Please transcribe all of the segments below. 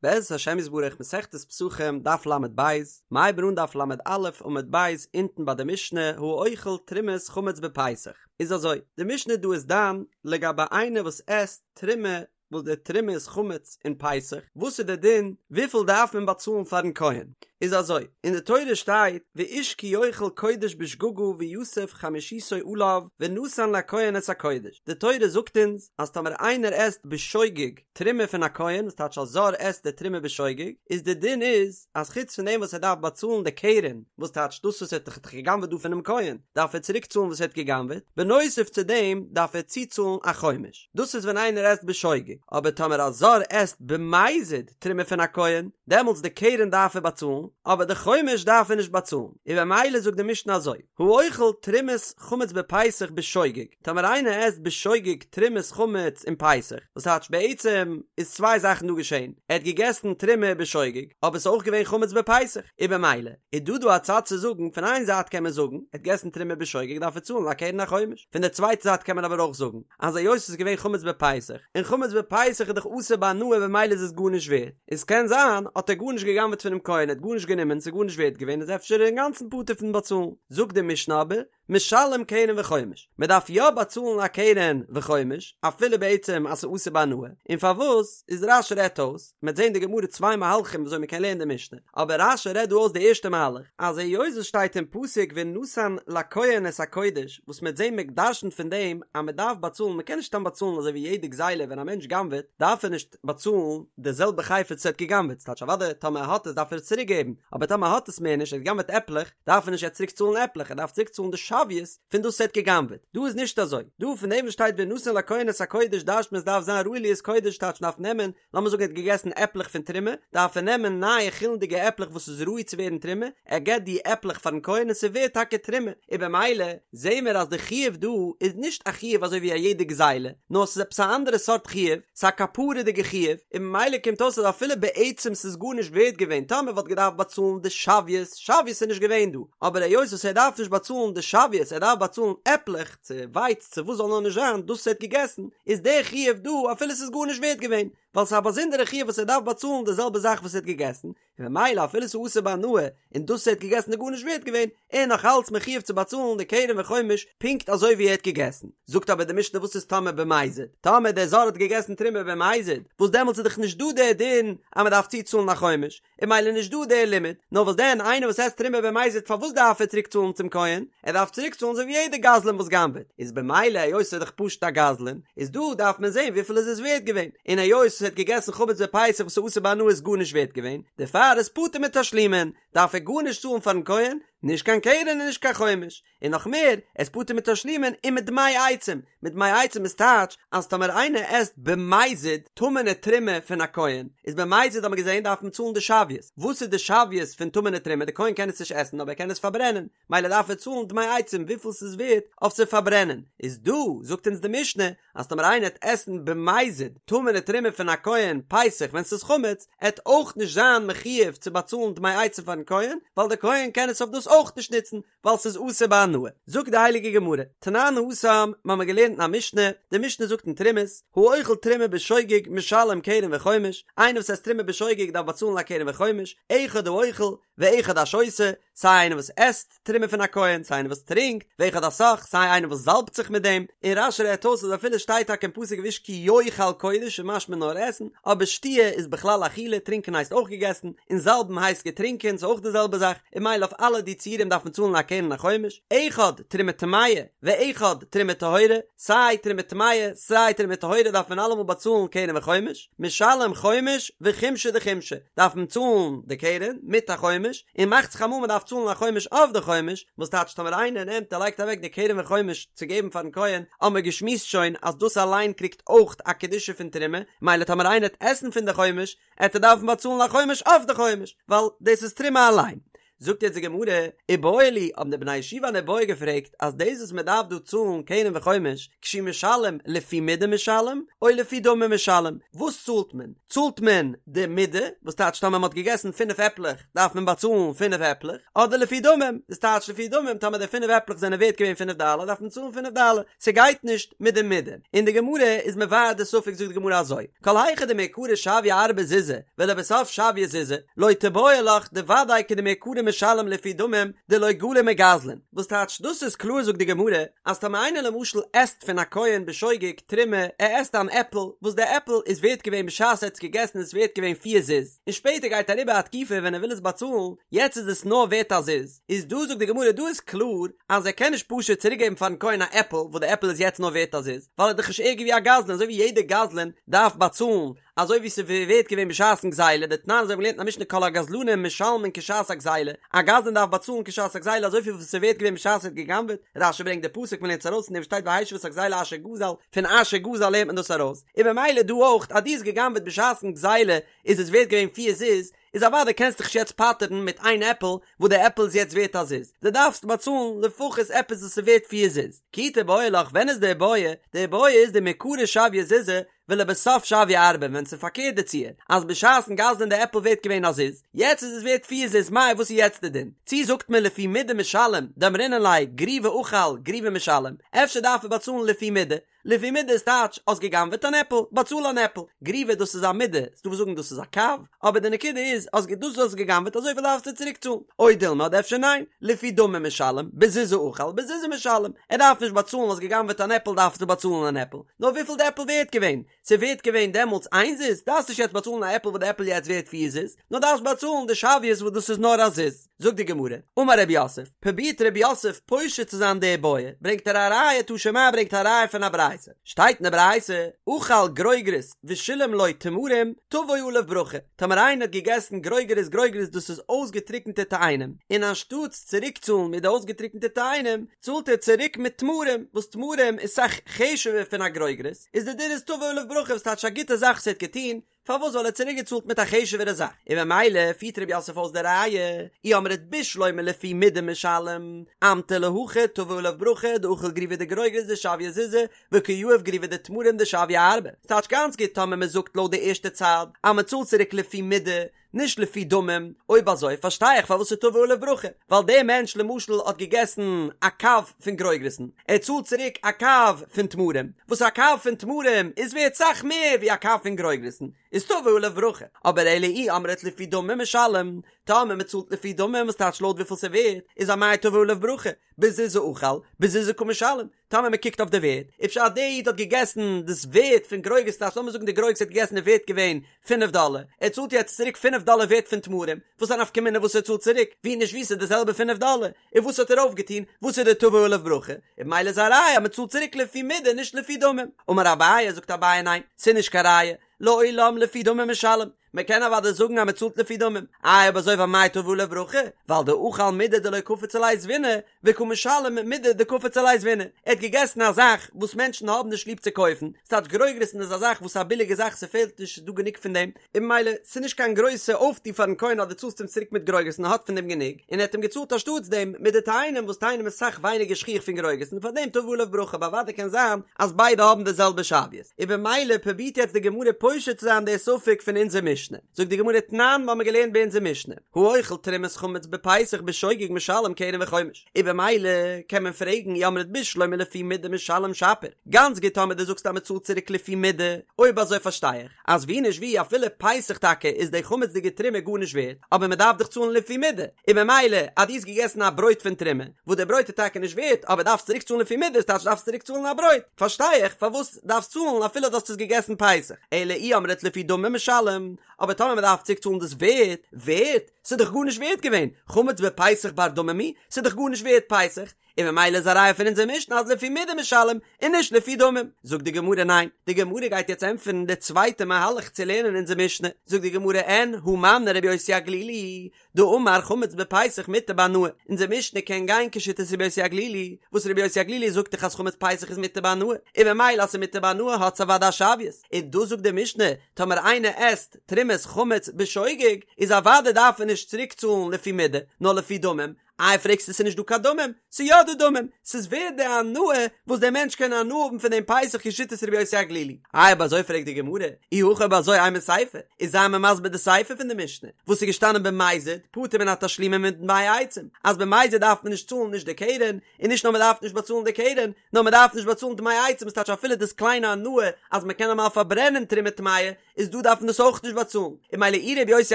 בעזרת השם יתברך מסכת פסחים דף ל"ב, מ'הייבן אן דף ל"א עמוד ב' אונטן ביי די משנה האוכל תרומת חמץ בפסח, איז אזוי, די משנה דא איז דן לגבי איינער וואס עסט תרומה וואס די תרומה איז חמץ אין פסח, וואס איז די דין, וויפיל דארף מען באצאלן פארן כהן? איז אזוי, אין די תורה שטייט ואיש כי יאכל קודש בשגגה ויסף חמישיתו עליו ונתן לכהן את הקודש, די תורה זאגט אונז אז טאמער איינער עסט בשוגג תרומה פון א כהן, וואס טייטש א זר עסט די תרומה בשוגג, איז די דין איז אז חוץ פון דעם וואס ער דארף באצאלן די קרן, וואס טייטש דאס וואס ער האט דאך גע'גנב'עט דא פונעם כהן, דארף ער צוריק צאלן וואס ער האט גע'גנב'עט, בנוסף צו דעם דארף ער צוצאלן א חומש. דאס איז ווען איינער עסט בשוגג, אבער טאמער א זר עסט במזיד תרומה פון א כהן, דעמאלטס די קרן דארף ער באצאלן, אבער די חומש דארף ער נישט באצאלן, און במילא זאגט די משנה אזוי, האוכל תרומת חמץ בפסח בשוגג, טאמער איינער עסט בשוגג תרומת חמץ אין פסח, וואס טייטש בעצם איז צוויי זאכן דא געשען, ער האט געגעסן תרומה בשוגג, אבער ס'איז אויך געווען חמץ בפסח, און במילא איז דא דא א צד צו זאגן, פון איין זייט קען מען זאגן, ער האט געגעסן תרומה בשוגג דארף ער צאלן א קרן א חומש, פון די צווייטע זייט קען מען אבער אויך זאגן, אז היות ס'איז געווען חמץ בפסח, און חמץ בפסח איז דאך אסור בהנאה במילא איז עס גארנישט ווערט, איז קען זיין האט ער גארנישט גע'גנב'ט פונעם כהן, ער האט גארנישט גענומען, ס'איז גארנישט ווערט געווען, איז אפשר אינגאנצן פטור פון באצאלן. זאגט די משנה אבער, משלם קרן וחומש, מען דארף יא באצאלן א קרן וחומש, אפילו בעצם אז ס'איז אסור בהנאה, און פארוואס, איז רש"י רעדט אויס, מ'וועט זען די גמרא צוויי מהלכים וויאזוי מ'קען לערנען די משנה, אבער רש"י רעדט דא אויס די ערשטע מהלך, אז היות עס שטייט אין פסוק ונתן לכהן את הקודש, וואס מ'וועט זען מ'דרש'נט פון דעם אז מ'דארף באצאלן, מ'קען נישט סתם באצאלן אזוי ווי יעדע גזילה ווען א מענטש גנב'עט דארף ער נישט באצאלן די זעלבע חפץ וואס ער האט געגנב'עט, ס'טייטש אוודאי טאמער ער האט עס דארף ער עס צוריק געבן, אבער טאמער ער האט עס מער נישט, ער האט געגנב'עט עפלעך, דארף ער נישט יעצט צוריק צאלן עפלעך, ער דארף צוריק צאלן די שוויות פון דאס וואס ער האט געגנב'עט, דא איז נישט אזוי, דא פון דעם וואס שטייט ונתן לכהן את הקודש דרש'נט מען עס דארף זיין ראוי להיות קודש טייטש מ'דארף נעמען לאמיר זאגן ער האט געגעסן עפלעך פון תרומה, דארף ער נעמען נייע חולין'דיגע עפלעך וואס איז ראוי צו ווערן תרומה, ער געבט די עפלעך פארן כהן און ס'ווערט טאקע תרומה, און במילא זעהן מיר אז די חיוב דא איז נישט א חיוב אזוי ווי א יעדע גזילה, נאר ס'איז עפעס א אנדערע סארט חיוב, ס'איז א כפרה'דיגע חיוב, און במילא קומט אויס אז אפילו בעצם ס'איז גארנישט ווערט געווען טאמער וואלט געדארפט באצאלן די שוויות, שוויות איז נישט געווען דא, אבער היות וואס ער דארף נישט באצאלן די שוויות ער דארף באצאלן עפלעך, צו ווייץ צו וואס זאל נאר נישט זיין דאס וואס ער האט געגעסן, איז דער חיוב דא אפילו ס'איז גארנישט ווערט געווען, ווייל ס'איז א באזונדערע חיוב וואס ער דארף באצאלן די זעלבע זאך וואס ער האט געגעסן, און ממילא אפילו ס'איז אסור בהנאה און דאס וואס ער האט געגעסן איז גארנישט ווערט געווען, ער איז נאך אלץ מחיוב צו באצאלן די קרן וחומש פונקט אזוי ווי ער האט געגעסן. זאגט אבער די משנה וואס איז טאמער במזיד? טאמער דער זר האט געגעסן תרומה במזיד, וואס דעמאלטס איז דאך נישט דא דער דין אז מ'דארף צוצאלן א חומש, און ממילא נישט דא דער לימוד, נאר וואס דען איינער וואס עסט תרומה במזיד פארוואס דארף ער צוריק צאלן צום כהן? ער דארף צוריק צאלן אזוי ווי יעדער גזלן וואס גנב'עט, איז במילא היות ס'איז דאך פשוט א גזלן, איז דא דארף מען זען וויפיל איז עס ווערט געווען, און היות ער האט געגעסן חמץ בפסח וואס איז אסור בהנאה איז גארנישט ווערט געווען, דערפאר איז פטור מתשלומין, דארף ער גארנישט צאלן פארן כהן, נישט קיין קרן און נישט קיין חומש. און נאך מער, ער איז פטור מתשלומין ומדמי עצים, מדמי עצים איז טייטש אז טאמער איינער עסט במזיד טמא'נע תרומה פון א כהן, איז במזיד האט מען געזען דארף מען צאלן די שוויות, וואס איז די שוויות פון טמא'נע תרומה, די כהן קען עס נישט עסן אבער ער קען עס פארברענען, מילא דארף ער צאלן דמי עצים וויפיל ס'איז ווערט אויף צו פארברענען, איז דא זאגט אונז די משנה אז טאמער איינער עט עסן במזיד טמא'נע תרומה פון א כהן פסח ווען ס'איז חמץ, עט אויך נישט זיין מחיוב צו באצאלן דמי עצים פארן כהן, ווייל די כהן קען עס אויף דאס אויך נישט נוצן, ווייל ס'איז אסור בהנאה. זאגט די הייליגע גמרא, תנן התם, מ'האמיר געלערנט אין א משנה, די משנה זאגט אין תרומות, האוכל תרומה בשוגג משלם קרן וחומש, איינער וואס עסט תרומה בשוגג דארף באצאלן א קרן וחומש, אחד האוכל ואחד השותה, סיי איינער וואס עסט תרומה פון א כהן, סיי איינער וואס טרינקט, ואחד הסך, סיי איינער וואס זאלבט זיך מיט דעם, און רש"י רעדט אויס אז אפילו שטייט טאקע אין פסוק ואיש כי יאכל קודש איז משמע נאר עסן, אבער שתיה איז בכלל אכילה, טרינקען הייסט אויך געגעסן, און זאלבן הייסט געטרינקען, ס'איז אויך די זעלבע זאך, און ממילא אויף אלע די ציורים דארף מען צאלן א קרן און א חומש, אחד תרומה טמאה ואחד תרומה טהורה, סיי תרומה טמאה סיי תרומה טהורה דארף מען אלעמאל באצאלן קרן וחומש, משלם חומש וחומשא דחומשא, דארף מען צאלן די קרן מיט א חומש, און מאכט זיך אמאל מען דארף צאלן א חומש אויף די חומש, וואס טייטש טאמער איינער נעמט און לייגט אוועק די קרן וחומש צו געבן פארן כהן, האמער געשמועסט שוין אז דאס אליין קריגט אויך א קדושה פון תרומה, מילא טאמער איינער עט עסן פון די חומש, עט ער דארפן באצאלן א חומש אויף די חומש, ווייל דאס איז תרומה אליין. זאגט יעצט די גמרא, איבעיא להו, האבן די בני ישיבה אן איבעיא געפרעגט אז דאס וואס מען דארף דא צאלן קרן וחומש, כשהוא משלם לפי מידה משלם, או לפי דמים משלם, וואס צאלט מען? צאלט מען די מידה, וואס טייטש טאמער מען האט געגעסן פינף עפלעך דארף מען באצאלן פינף עפלעך, אדער לפי דמים, דאס טייטש לפי דמים טאמער די פינף עפלעך זענען ווערט געווען פינף דאלער דארף מען צאלן פינף דאלער, ס'גייט נישט מיט די מידה. און די גמרא איז מבאר די ספק זאגט די גמרא אזוי, כל היכא דמעיקרא שויא ארבעה זוזי ולבסוף שויא זוזא, לא תיבעי לך דודאי כדמעיקרא משלם לפי דמים דלא גלי מגזלן, וואס טייטש דאס איז קלאר זאגט די גמרא אז טאמער איינער למשל עסט פון א כהן בשוגג תרומה ער עסט אן עפל וואס די עפל איז ווערט געווען בשעת ער האט עס געגעסן איז עס ווערט געווען פיר זוז און שפעטער גייט אריבער א תקופה ווען ער וויל עס באצאלן יעצט איז עס נאר ווערט א זוז איז דא זאגט די גמרא דא איז קלאר אז ער קען נישט פשוט צוריק געבן פארן כהן א עפל וואס די עפל איז יעצט נאר ווערט א זוז ווייל ער איז דאך נישט ערגער ווי א גזלן אזוי ווי יעדער גזלן דארף באצאלן אזוי ווי ס'איז ווערט געווען בשעת'ן גזילה, דתנן אזוי ווי מ'האט געלערנט אין א משנה כל הגזלנים משלמין כשעת הגזילה, א גזלן דארף באצאלן כשעת הגזילה אזויפיל ווי ס'איז ווערט געווען בשעת ער האט גע'גנב'עט, רש"י ברענגט די פסוק מ'לערנט עס ארויס אין דעם שטייט והשיב את הגזילה אשר גזל, פון אשר גזל לערנט מען דאס ארויס, און במילא דא אויך אז דו האסט גע'גנב'עט בשעת'ן גזילה איז עס ווערט געווען פיר זוז, איז אוודאי קענסט דיך נישט יעצט פטר'ן מיט איין עפל וואס די עפל איז יעצט ווערט א זוז, דו דארפסט באצאלן לפחות עפעס וואס איז ווערט פיר זוז. כי תיבעי לך ווען איז די איבעיא? די איבעיא איז דמעיקרא שויא זוזא ולבסוף שויא ארבעה ווען ס'איז פארקערט די ציור אז בשעת'ן גזל'ן די עפל ווערט געווען א זוז, יעצט איז עס ווערט פיר זוז מאי וואס איז יעצט די דין? צי זאגט מען לפי מידה משלם דאמרינן ליה גריוא אכל גריוא משלם, אפשר דארף ער באצאלן לפי מידה, לפי מידה איז טייטש האסט גע'גנב'עט אן עפל, באצאל אן עפל, גריוא דאס איז א מידה, ס'דא וואס זאגן דאס איז א קב, אבער די נקודה איז אז דאס וואס האסט גע'גנב'עט אזויפיל דארפסטו צוריק צאלן, או דילמא אדער אפשר ניין, לפי דמים משלם, בזוזא אכל בזוזא משלם, ער דארף נישט באצאלן האסט גע'גנב'עט אן עפל דארפסטו באצאלן אן עפל, נאר וויפיל די עפל ווערט געווען, ס'איז ווערט געווען דעמאלטס איין זוז, דארפסט נישט יעצט באצאלן א עפל וואס די עפל יעצט ווערט פיר זוז, נאר דארפסט באצאלן די שוויות וואס דאס איז נאר א זוז. זאגט די גמרא, אמר רב יוסף, פרובירט רב יוסף פושט צו זיין די בעיא, ברענגט ער א ראיה תא שמע ברענגט א ראיה פון א ברייתא, שטייט אין די ברייתא, אכל גרוגרות ושילם לו תמרים, תבוא עליו ברכה, טאמער איינער האט געגעסן גרוגרות גרוגרות דאס איז אויסגעטריקענטע תאנים, און אנשטאטס צוריקצאלן מיט די אויסגעטריקענטע תאנים, צאלט ער צוריק מיט תמרים, וואס תמרים איז סאך חשוב'ער פון א גרוגרות, איז די דין איז תבוא עליו ברכה וואס טייטש א גוטע זאך וואס ער האט געטון, פארוואס ווייל ער האט צוריק געצאלט מיט א חשוב'ערע זאך, און ממילא פירט רב יוסף אויס די ראיה, אי אמרת בשלמא לפי מידה משלם, אמטו להכי תבוא עליו ברכה דאכל גריוא דגרוגרות דשויא זוזא, וקא יהיב גריוא דתמרים דשויא ארבעה, ס'טייטש גאנץ גוט טאמער מען זאגט לויט די ערשטע צד אז מען צאלט צוריק לפי מידה, נישט לפי דמים, אויב אזוי פארשטיי איך פארוואס ס'תבוא עליו ברכה, ווייל דער מענטש למשל האט געגעסן א קב פון גרוגרת'ן, ער צאלט צוריק א קב פון תמרים, וואס א קב פון תמרים איז ווערט סאך מער ווי א קב פון גרוגרת'ן, איז תבוא עליו ברכה, אבער אלא אי אמרת לפי דמים משלם, טאמער מען צאלט לפי דמים וואס טייטש לויט וויפיל ס'ווערט, איז אמאי תבוא עליו ברכה, בזוזא אכל, בזוזא קא משלם, טאמער מען קוקט אויף די ווערט, איז פשט דער איד האט געגעסן דאס ווערט פון גרוגרות טייטש לאמיר זאגן די גרוגרות האט געגעסן איז ווערט געווען פינף דאלער, ער צאלט יעצט צוריק פינף דאלער ווערט פון תמרים, וואס איז א נפקא מינה וואס ער צאלט צוריק, ווי נישט ווי ס'איז די זעלבע פינף דאלער, און וואס האט ער אויפגעטון, וואס איז די תבוא עליו ברכה, און ממילא איז א ראיה אז מען צאלט צוריק לפי מידה נישט לפי דמים, אמר אביי זאגט אביי ניין, ס'איז נישט קיין ראיה, לעולם לפי דמים משלם, מען קען אוודאי זאגן אז מען צאלט לפי דמים, איי אויב אזוי ואמאי תבוא עליו ברכה, ווייל דאכל מידי דלא קפיץ עליה זבינא, וקא משלם מידי דקפיץ עליה זבינא, ער האט געגעסן א זאך וואס מענטשן האבן נישט ליב צו קויפן, ס'טייטש גרוגרת'ן איז א זאך וואס איז א ביליגע זאך ס'פעלט נישט ס'איז דא גענוג פון דעם, און ממילא ס'איז נישט קיין גרויסע אויפטו פארן כהן אז דו צאלסט אים צוריק מיט גרוגרת'ן ער האט פון דעם גענוג, און ער האט אים געצאלט אנשטאטס דעם מיט די תאנים וואס תאנים איז סאך ווייניגער שכיח פון גרוגרת'ן פאר דעם תבוא עליו ברכה אבער אוודאי קען זיין אז ביידע האבן די זעלבע שוויות. און במילא פרובירט יעצט די גמרא פושט צו זיין די ספק פון אונזער משנה. זאגט די גמרא תנן, מ'האמיר געלערנט ביי אונזער משנה, האוכל תרומת חמץ בפסח בשוגג משלם קרן וחומש. און במילא קען מען פרעגן אי אמרת בשלמא לפי מידה משלם שפיר. גאנץ גוט טאמער דו זאגסט אז מ'צאלט צוריק לפי מידה, אויב אזוי פארשטיי איך אז ווי נישט ווי אפילו פסח טאקע איז די חמצ'דיגע תרומה גארנישט ווערט, אבער מ'דארף דאך צאלן לפי מידה, און במילא אז דו האסט געגעסן א ברויט פון תרומה, וואס די ברויט איז טאקע נישט ווערט אבער דארפסט צוריק צאלן לפי מידה, ס'טייטש דארפסט צוריק צאלן א ברויט, פארשטיי איך פארוואס דארפסט צאלן אפילו דו האסט עס געגעסן פסח, אלא אי אמרת לפי דמים משלם, אבער טאמער מ'דארף צוריק צאלן דאס ווערט, ווערט? ס'איז דאך גארנישט ווערט געווען, חמץ בפסח בר דמים הוא, ס'איז דאך גארנישט ווערט פסח. און ממילא איז א ראיה פון אונזער משנה אז לפי מידה משלם און נישט לפי דמים. זאגט די גמרא ניין, די גמרא גייט יעצט ענטפערן די צווייטע מהלך צו לערנען אונזער משנה, זאגט די גמרא אין הא מני רבי יוסי הגלילי, דאמר חמץ בפסח מותר בהנאה, אונזער משנה קען גיין כשיטת רבי יוסי הגלילי, וואס רבי יוסי הגלילי זאגט דאך אז חמץ פסח איז מותר בהנאה, און ממילא אז ס'איז מותר בהנאה האט עס אוודאי א שוויות, און דא זאגט די משנה, טאמער איינער עסט תרומת חמץ בשוגג, איז אוודאי דארף ער נישט צוריק צאלן לפי מידה, נאר לפי דמים, איי פרעגסטו ס'איז נישט דא קיין דמים? ס'איז יא דא דמים, ס'איז ווערד די הנאה וואס דער מענטש קען הנאה האבן פון דעם פסח כשיטת רבי יוסי הגלילי. איי אויב אזוי פרעגט די גמרא, אי הכי אויב אזוי אימא סיפא, איז זיי מיר מסביר די סיפא פון די משנה, וואס איז געשטאנען במזיד, פטור מן התשלומין ומדמי עצים, אז במזיד דארף מען נישט צאלן נישט די קרן, און נישט נאר מען דארף נישט באצאלן די קרן, נאר מען דארף נישט באצאלן דמי עצים, ס'טייטש אפילו דאס קליינע הנאה אז מען קען אמאל פארברענען תרומה טמאה, איז דא דארף מען דאס אויך נישט באצאלן, און ממילא אי רבי יוסי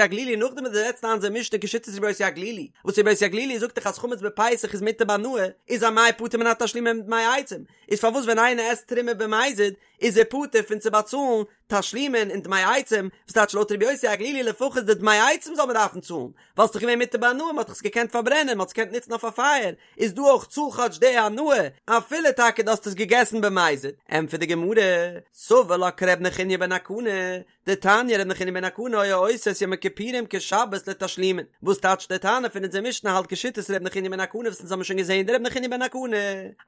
הגלילי נאכדעם וואס דו זעצט איין אונזער משנה כשיטת רבי יוסי הגלילי, וואס רבי יוסי הגלילי זאגט דאך אז חמץ בפסח איז מותר בהנאה, איז אמאי פטור מן התשלומין ומדמי עצים, איז פארוואס ווען איינער עסט תרומה במזיד איז ער פטור פון צו באצאלן תשלומין און דמי עצים, וואס טייטש לויט רבי יוסי הגלילי לפחות די דמי עצים זאל מען דארפן צאלן, ווייל ס'איז דאך געווען מותר בהנאה מען האט דאך עס געקענט פארברענען מען האט עס געקענט נוצן אויף א פייער, איז דא אויך צאל כאטש די הנאה, אפילו טאקע דו האסט עס געגעסן במזיד. ענטפערט די גמרא, סבר לה כר' נחוניא בן הקנה, דתניא ר' נחוניא בן הקנה היה עושה את יום הכיפורים כשבת לתשלומין, וואס טייטש די תנא פון אונזער משנה האלט כשיטת ר' נחוניא בן הקנה וואס אונז האבן שוין געזען די ר' נחוניא בן הקנה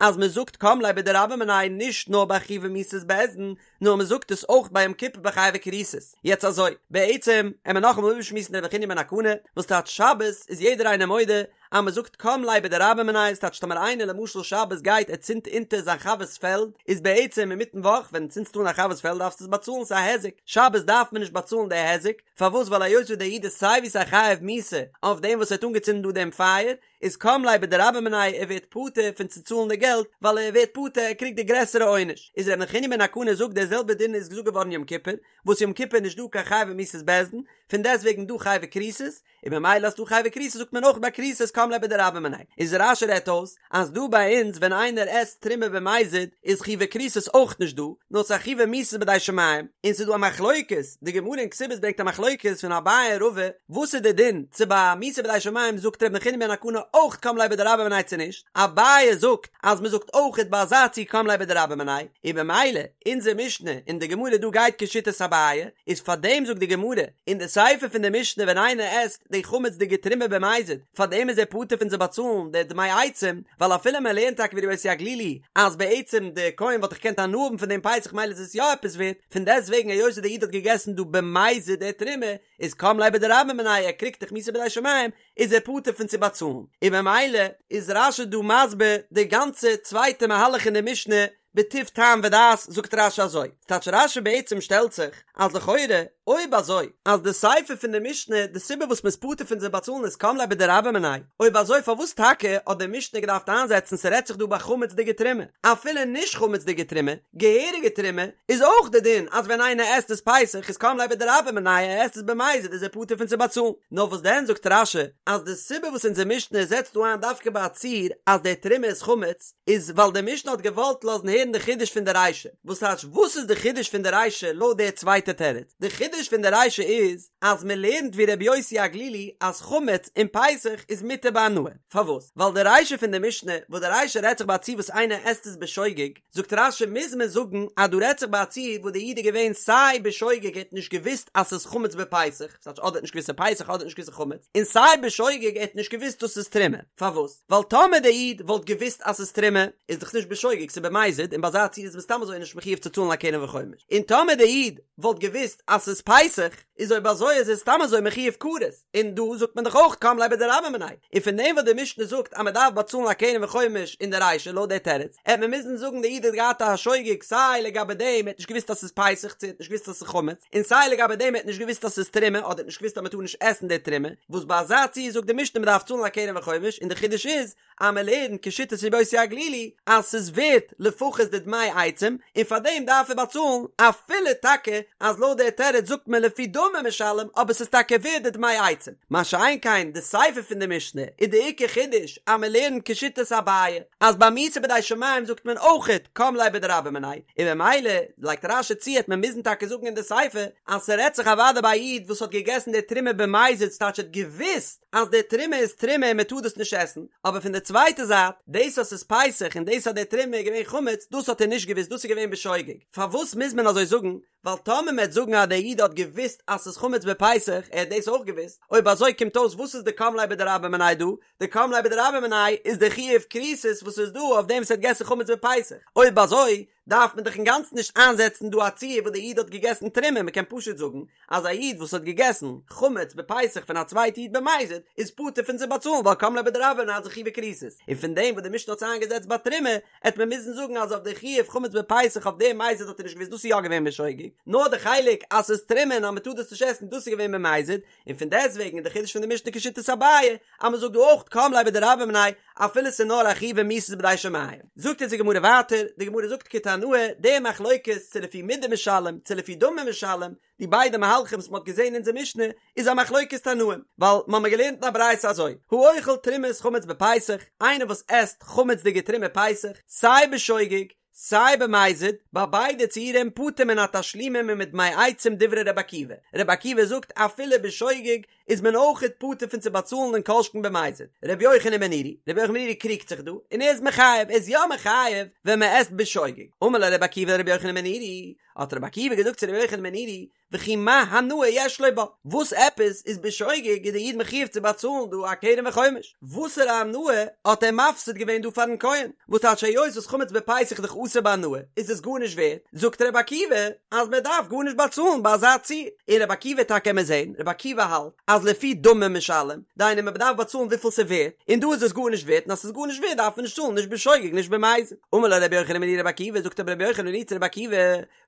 אז מען זאגט קם ליה בדרבה מיניה נישט נאר ביי חייבי מיתות בית דין נאר מען זאגט עס אויך ביי יום כיפור ביי חייבי כריתות. יעצט אזוי, בעצם עמער נאכאמאל איבערשמועסן ר' נחוניא בן הקנה, וואס טייטש שבת איז יעדער איינער מודה אז מען זאגט קם ליה בדרבה מיניה, ס'טייטש טאמער איינער למשל שבת גייט ער צינדט אונטער זיין חבר'ס פעלד, איז בעצם אינמיטן וואך ווען צינדסטו אן א חבר'ס פעלד דארפסטו עס באצאלן ס'איז א היזק, שבת דארף מען נישט באצאלן די היזק, פארוואס ווייל היות וואס דער איד איז סיי ווי סיי חייב מיתה אויף דעם וואס ער האט אנגעצינדן דא דעם פייער, איז קם ליה בדרבה מיניה ער ווערט פטור פון צו צאלן די געלט ווייל ער ווערט פטור ער קריגט די גרעסערע עונש איז ר' נחוניא בן הקנה זאגט דער זעלבער דין איז געזאגט געווארן יום כיפור וואס יום כיפור איז נישט דא קיין חייבי מיתות בית דין פון דעסט וועגן דא חייבי כריתות און ממילא אז ס'דא חייבי כריתות זאגט מען אויך ביי כריתות קם ליה בדרבה מיניה איז רש"י רעדט אויס אז דא ביי אונז ווען איינער עסט תרומה במזיד איז חייבי כריתות אויך נישט דא נאר ס'איז א חייבי מיתות בידי שמים און ס'איז דא א מחלוקת די גמרא אין כתובות ברענגט א מחלוקת פון אביי און רבא וואס איז די דין צו ביי מיתה בידי שמים זאגט ר' נחוניא בן הקנה אויך קם ליה בדרבה מיניה צו נישט אביי זאגט אז מ'זאגט אויכעט ביי אזא ציור קם ליה בדרבה מיניה און במילא אונזער משנה און די גמרא דא גייט כשיטת אביי איז פארדעם זאגט די גמרא אין די סיפא פון די משנה ווען איינער עסט די חמצ'דיגע תרומה במזיד פאר דעם איז ער פטור פון צו באצאלן די דמי עצים, ווייל אפילו מען לערנט טאקע ווי רבי יוסי הגלילי אז בעצם די כהן וואלט דאך געקענט הנאה האבן פון דעם פסח מילא איז עס יא עפעס ווערט, פון דעסט וועגן היות וואס די איד האט געגעסן דא במזיד די תרומה, איז קם ליה בדרבה מיניה ער קריגט דאך מיתה בידי שמים, איז ער פטור פון צו באצאלן, און במילא איז רש"י דא מסביר די גאנצע צווייטע מהלך אין די משנה בטוב טעם ודעת זאגט רש"י אזוי, ס'טייטש רש"י בעצם שטעלט זיך אז לכאורה אויב אזוי אז די סיפא פון די משנה די סיבה וואס מ'איז פטור פון צו באצאלן איז קם ליה בדרבה מיניה, אויב אזוי פארוואס טאקע האט די משנה געדארפט איינזעצן ס'רעדט זיך דא ביי חמצ'דיגע תרומה, אפילו נישט חמצ'דיגע תרומה, געהעריגע תרומה, איז אויך די דין אז ווען איינער עסט עס פסח איז קם ליה בדרבה מיניה ער עסט עס במזיד איז ער פטור פון צו באצאלן, נאר וואס דען זאגט רש"י אז די סיבה וואס אונזער משנה זעצט דא איין דווקא ביי א ציור אז די תרומה איז חמץ, איז ווייל די משנה האט געוואלט לאזן הערן די חידוש פון די רישא, וואס טייטש וואס איז די חידוש פון די רישא לויט די צווייטע תירוץ? די חידוש פון די רישא איז אז מען לערנט ווי רבי יוסי הגלילי אז חמץ אום פסח איז מותר בהנאה, פארוואס? ווייל די רישא פון די משנה וואס די רישא רעדט זיך ביי א ציור וואס איינער עסט עס בשוגג, זאגט רש"י מוז מען זאגן אז דא רעדט זיך ביי א ציור וואס די איד איז געווען סיי בשוגג ער האט נישט געוואוסט אז ס'איז חמץ בפסח, ס'טייטש אדער האט נישט געוואוסט ס'איז פסח אדער האט נישט געוואוסט ס'איז חמץ, און סיי בשוגג ער האט נישט געוואוסט דאס איז תרומה, פארוואס? ווייל טאמער דער איד וואלט געוואוסט אז ס'איז תרומה, איז דאך נישט בשוגג, ס'איז במזיד, און ביי אזא ציור איז מען סתם אזוי נישט מחיוב צו צאלן א קרן וחומש. און טאמער דער איד וואלט געוואוסט אז ס'איז פסח, איז אויב אזוי איז ער סתם אזוי מחיוב כרת, און דא זאגט מען דאך אויך קם ליה בדרבה מיניה. און פון דעם וואס די משנה זאגט אז מען דארף באצאלן א קרן וחומש אין די רישא לויט דער תירוץ, העט מען מוזן זאגן דער איד האט געהאט א שוגג סיי לגבי דעם ער האט נישט געוואוסט אז ס'איז פסח צו ער האט נישט געוואוסט אז ס'איז חמץ, און סיי לגבי דעם ער האט נישט געוואוסט אז ס'איז תרומה אדער האט נישט געוואוסט אז מען טאר נישט עסן די תרומה, וואס ביי אזא ציור זאגט די משנה מען דארף צאלן א קרן וחומש, און די חידוש איז אז מען לערנט כשיטת רבי יוסי הגלילי אז ס'איז ווערט לפחות די דמי עצים און פאר דעם דארף ער באצאלן, אפילו טאקע אז לויט דער תירוץ זאגט מען לפי דמים. דמים משלם אבער ס'איז טאקע ווערד די דמי עצים, מה שאין כן די סיפא פון די משנה איז די עיקר חידוש אז מען לערנט כשיטת אביי אז ביי מיתה בידי שמים זאגט מען אויכעט קם ליה בדרבה מיניה, און ממילא לייגט רש"י צו העט מען מוזן טאקע זאגן אין די סיפא אז ס'רעדט זיך אוודאי ביי א איד וואס האט געגעסן די תרומה במזיד ס'טייטש ער האט געוואוסט אז די תרומה איז תרומה און מ'טאר דאס נישט עסן, אבער פון די צווייטע זייט דאס אז ס'איז פסח און דאס אז די תרומה איז געווען חמץ דאס האט ער נישט געוואוסט דאס איז געווען בשוגג, פארוואס מוז מען אזוי זאגן? ווייל טאמער מ'עט זאגן אז דער איד האט געוואוסט אז ס'איז חמץ בפסח, ער האט דאס אויך געוואוסט, אויב אזוי קומט אויס וואס איז די קם ליה בדרבה מיניה דא? די קם ליה בדרבה מיניה איז די חיוב כריתות וואס איז דא אויף דעם וואס האט געגעסן חמץ בפסח, אויב אזוי דארף מען דאך אינגאנצן נישט איינזעצן דא א ציור וואס דער איד האט געגעסן תרומה, מ'קען פשוט זאגן אז א איד וואס האט געגעסן חמץ בפסח פון א צווייטע איד במזיד איז פטור פון צו באצאלן ווייל קם ליה בדרבה מיניה איז א חיוב כריתות, און פון דעם וואס די משנה האט עס איינגעזעצט ביי תרומה העט מען מוזן זאגן אז אויף די חיוב חמץ בפסח אויף דעם מזיד האט ער נישט געוואוסט דאס איז יא געווען בשוגג, נאר די חלק אז ס'איז תרומה און אז מ'טאר דאס נישט עסן דאס איז געווען במזיד, און פון דעסטוועגן איז די חידוש פון די משנה כשיטת אביי אז מ'זאגט דא אויך קם ליה בדרבה מיניה אפילו ס'איז נאר א חיוב מיתות בידי שמים. זאגט אונז די גמרא ווייטער, די גמרא זאגט כתנאי, די מחלוקת צו לפי מידה משלם צו לפי דמים משלם, די ביידע מהלכים וואס מ'האט געזען אין אונזער משנה איז א מחלוקת תנאים, ווייל מ'האמיר געלערנט אין א ברייתא אזוי, האוכל תרומת חמץ בפסח, איינער וואס עסט חמצ'דיגע תרומה פסח, סיי בשוגג, סיי במזיד, ביי ביידע ציורים פטור מן התשלומים ומדמי עצים דברי ר' עקיבא, ר' עקיבא זאגט אפילו בשוגג איז מען אויכעט פטור פון צו באצאלן און כל שכן במזיד. ר' יוחנן בן נורי, ר' יוחנן בן נורי קריגט זיך דא, און ער איז מחייב, ער איז יא מחייב ווען מ'עסט בשוגג. אמר לו ר' עקיבא לר' יוחנן בן נורי, האט רבי עקיבא געזאגט צו רבי יוחנן בן נורי, וכי מה הנאה יש לו בה, וואס עפעס איז בשוגג איז דער איד מחויב צו באצאלן דא א קרן וחומש, וואסערע הנאה האט ער מפסיד געווען דא פארן כהן, וואס טייטש היות וואס חמץ בפסח איז דאך אסור בהנאה, איז עס גארנישט ווערט, זאגט רבי עקיבא אז מען דארף גארנישט באצאלן ביי אזא ציור, און רבי עקיבא טאקע קען מען זען, רבי עקיבא האלט אז לפי דמים משלם, דהיינו מען דארף באצאלן וויפיל ס'ווערט, און דא איז עס גארנישט ווערט, און אז ס'איז גארנישט ווערט דארף מען נישט צאלן נישט בשוגג נישט במזיד. אמר לו רבי יוחנן בן נורי לרבי עקיבא, זאגט אבער רבי יוחנן בן נורי צו רבי עקיבא,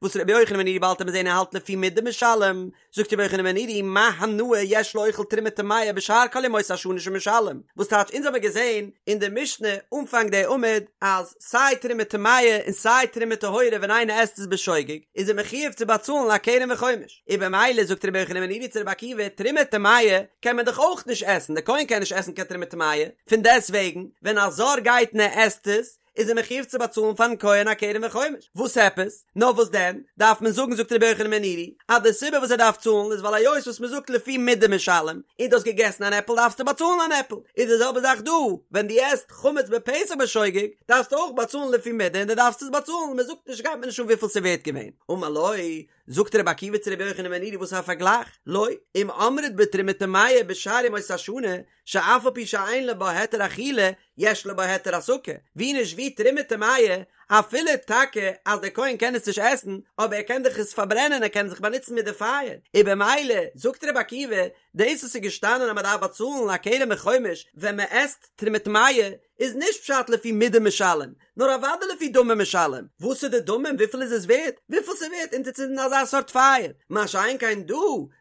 וואס רבי יוחנן בן נורי באלד וועט מען זען ער האלט לפי מידה משלם, זאגט רבי יוחנן בן נורי מה הנאה יש לאוכל תרומה טמאה בשאר כל ימות השנה שמשלם, וואס טייטש אונז האמיר געזען אין די משנה אנפאנג די עמוד אז סיי תרומה טמאה און סיי תרומה טהורה ווען איינער עסט עס בשוגג איז ער מחויב צו באצאלן א קרן וחומש, און במילא זאגט רבי יוחנן בן נורי צו רבי עקיבא תרומה טמאה קען מען דאך אויך נישט עסן, די כהן קען נישט עסן קיין תרומה טמאה, פון דעסט וועגן ווען א זר גייט און ער עסט עס איז ער מחויב צו באצאלן פארן כהן א קרן וחומש, וואס עפעס? נאר וואס דען דארף מען זאגן זאגט רבי יוחנן בן נורי אז די סיבה וואס ער דארף צאלן איז ווייל היות וואס מען זאגט לפי מידה משלם, און דו האסט געגעסן אן עפל דארפסטו באצאלן אן עפל, איז די זעלבע זאך דא, ווען דו עסט חמץ בפסח בשוגג דארפסטו אויך באצאלן לפי מידה און דו דארפסט עס באצאלן, מען זאגט נישט גייט מיר נישט אן וויפיל ס'ווערט געווען, אמר לו, זאגט רבי עקיבא צו רבי יוחנן בן נורי וואס איז א פארגלייך? לא, אם אמרת בתרומה טמאה בשאר ימות השנה, שאף על פי שאין לו בה היתר אכילה, יש לו בה היתר הסקה, ווי נישט ווי תרומה טמאה, אפילו טאקע אז דער כהן קען עס נישט עסן, אבער ער קען דאך עס פארברענען ער קען זיך באנוצן מיט די פייער, און במילא, זאגט רבי עקיבא, דאס וואס איז געשטאנען אז מען דארף באצאלן א קרן וחומש ווען מען עסט תרומה טמאה, איז נישט פשט לפי מידה משלם, נאר אוודאי לפי דמים משלם, וואס איז די דמים וויפיל איז עס ווערט? וויפיל ס'ווערט אונטערצינדן אזא סארט פייער, מה שאין כן דא,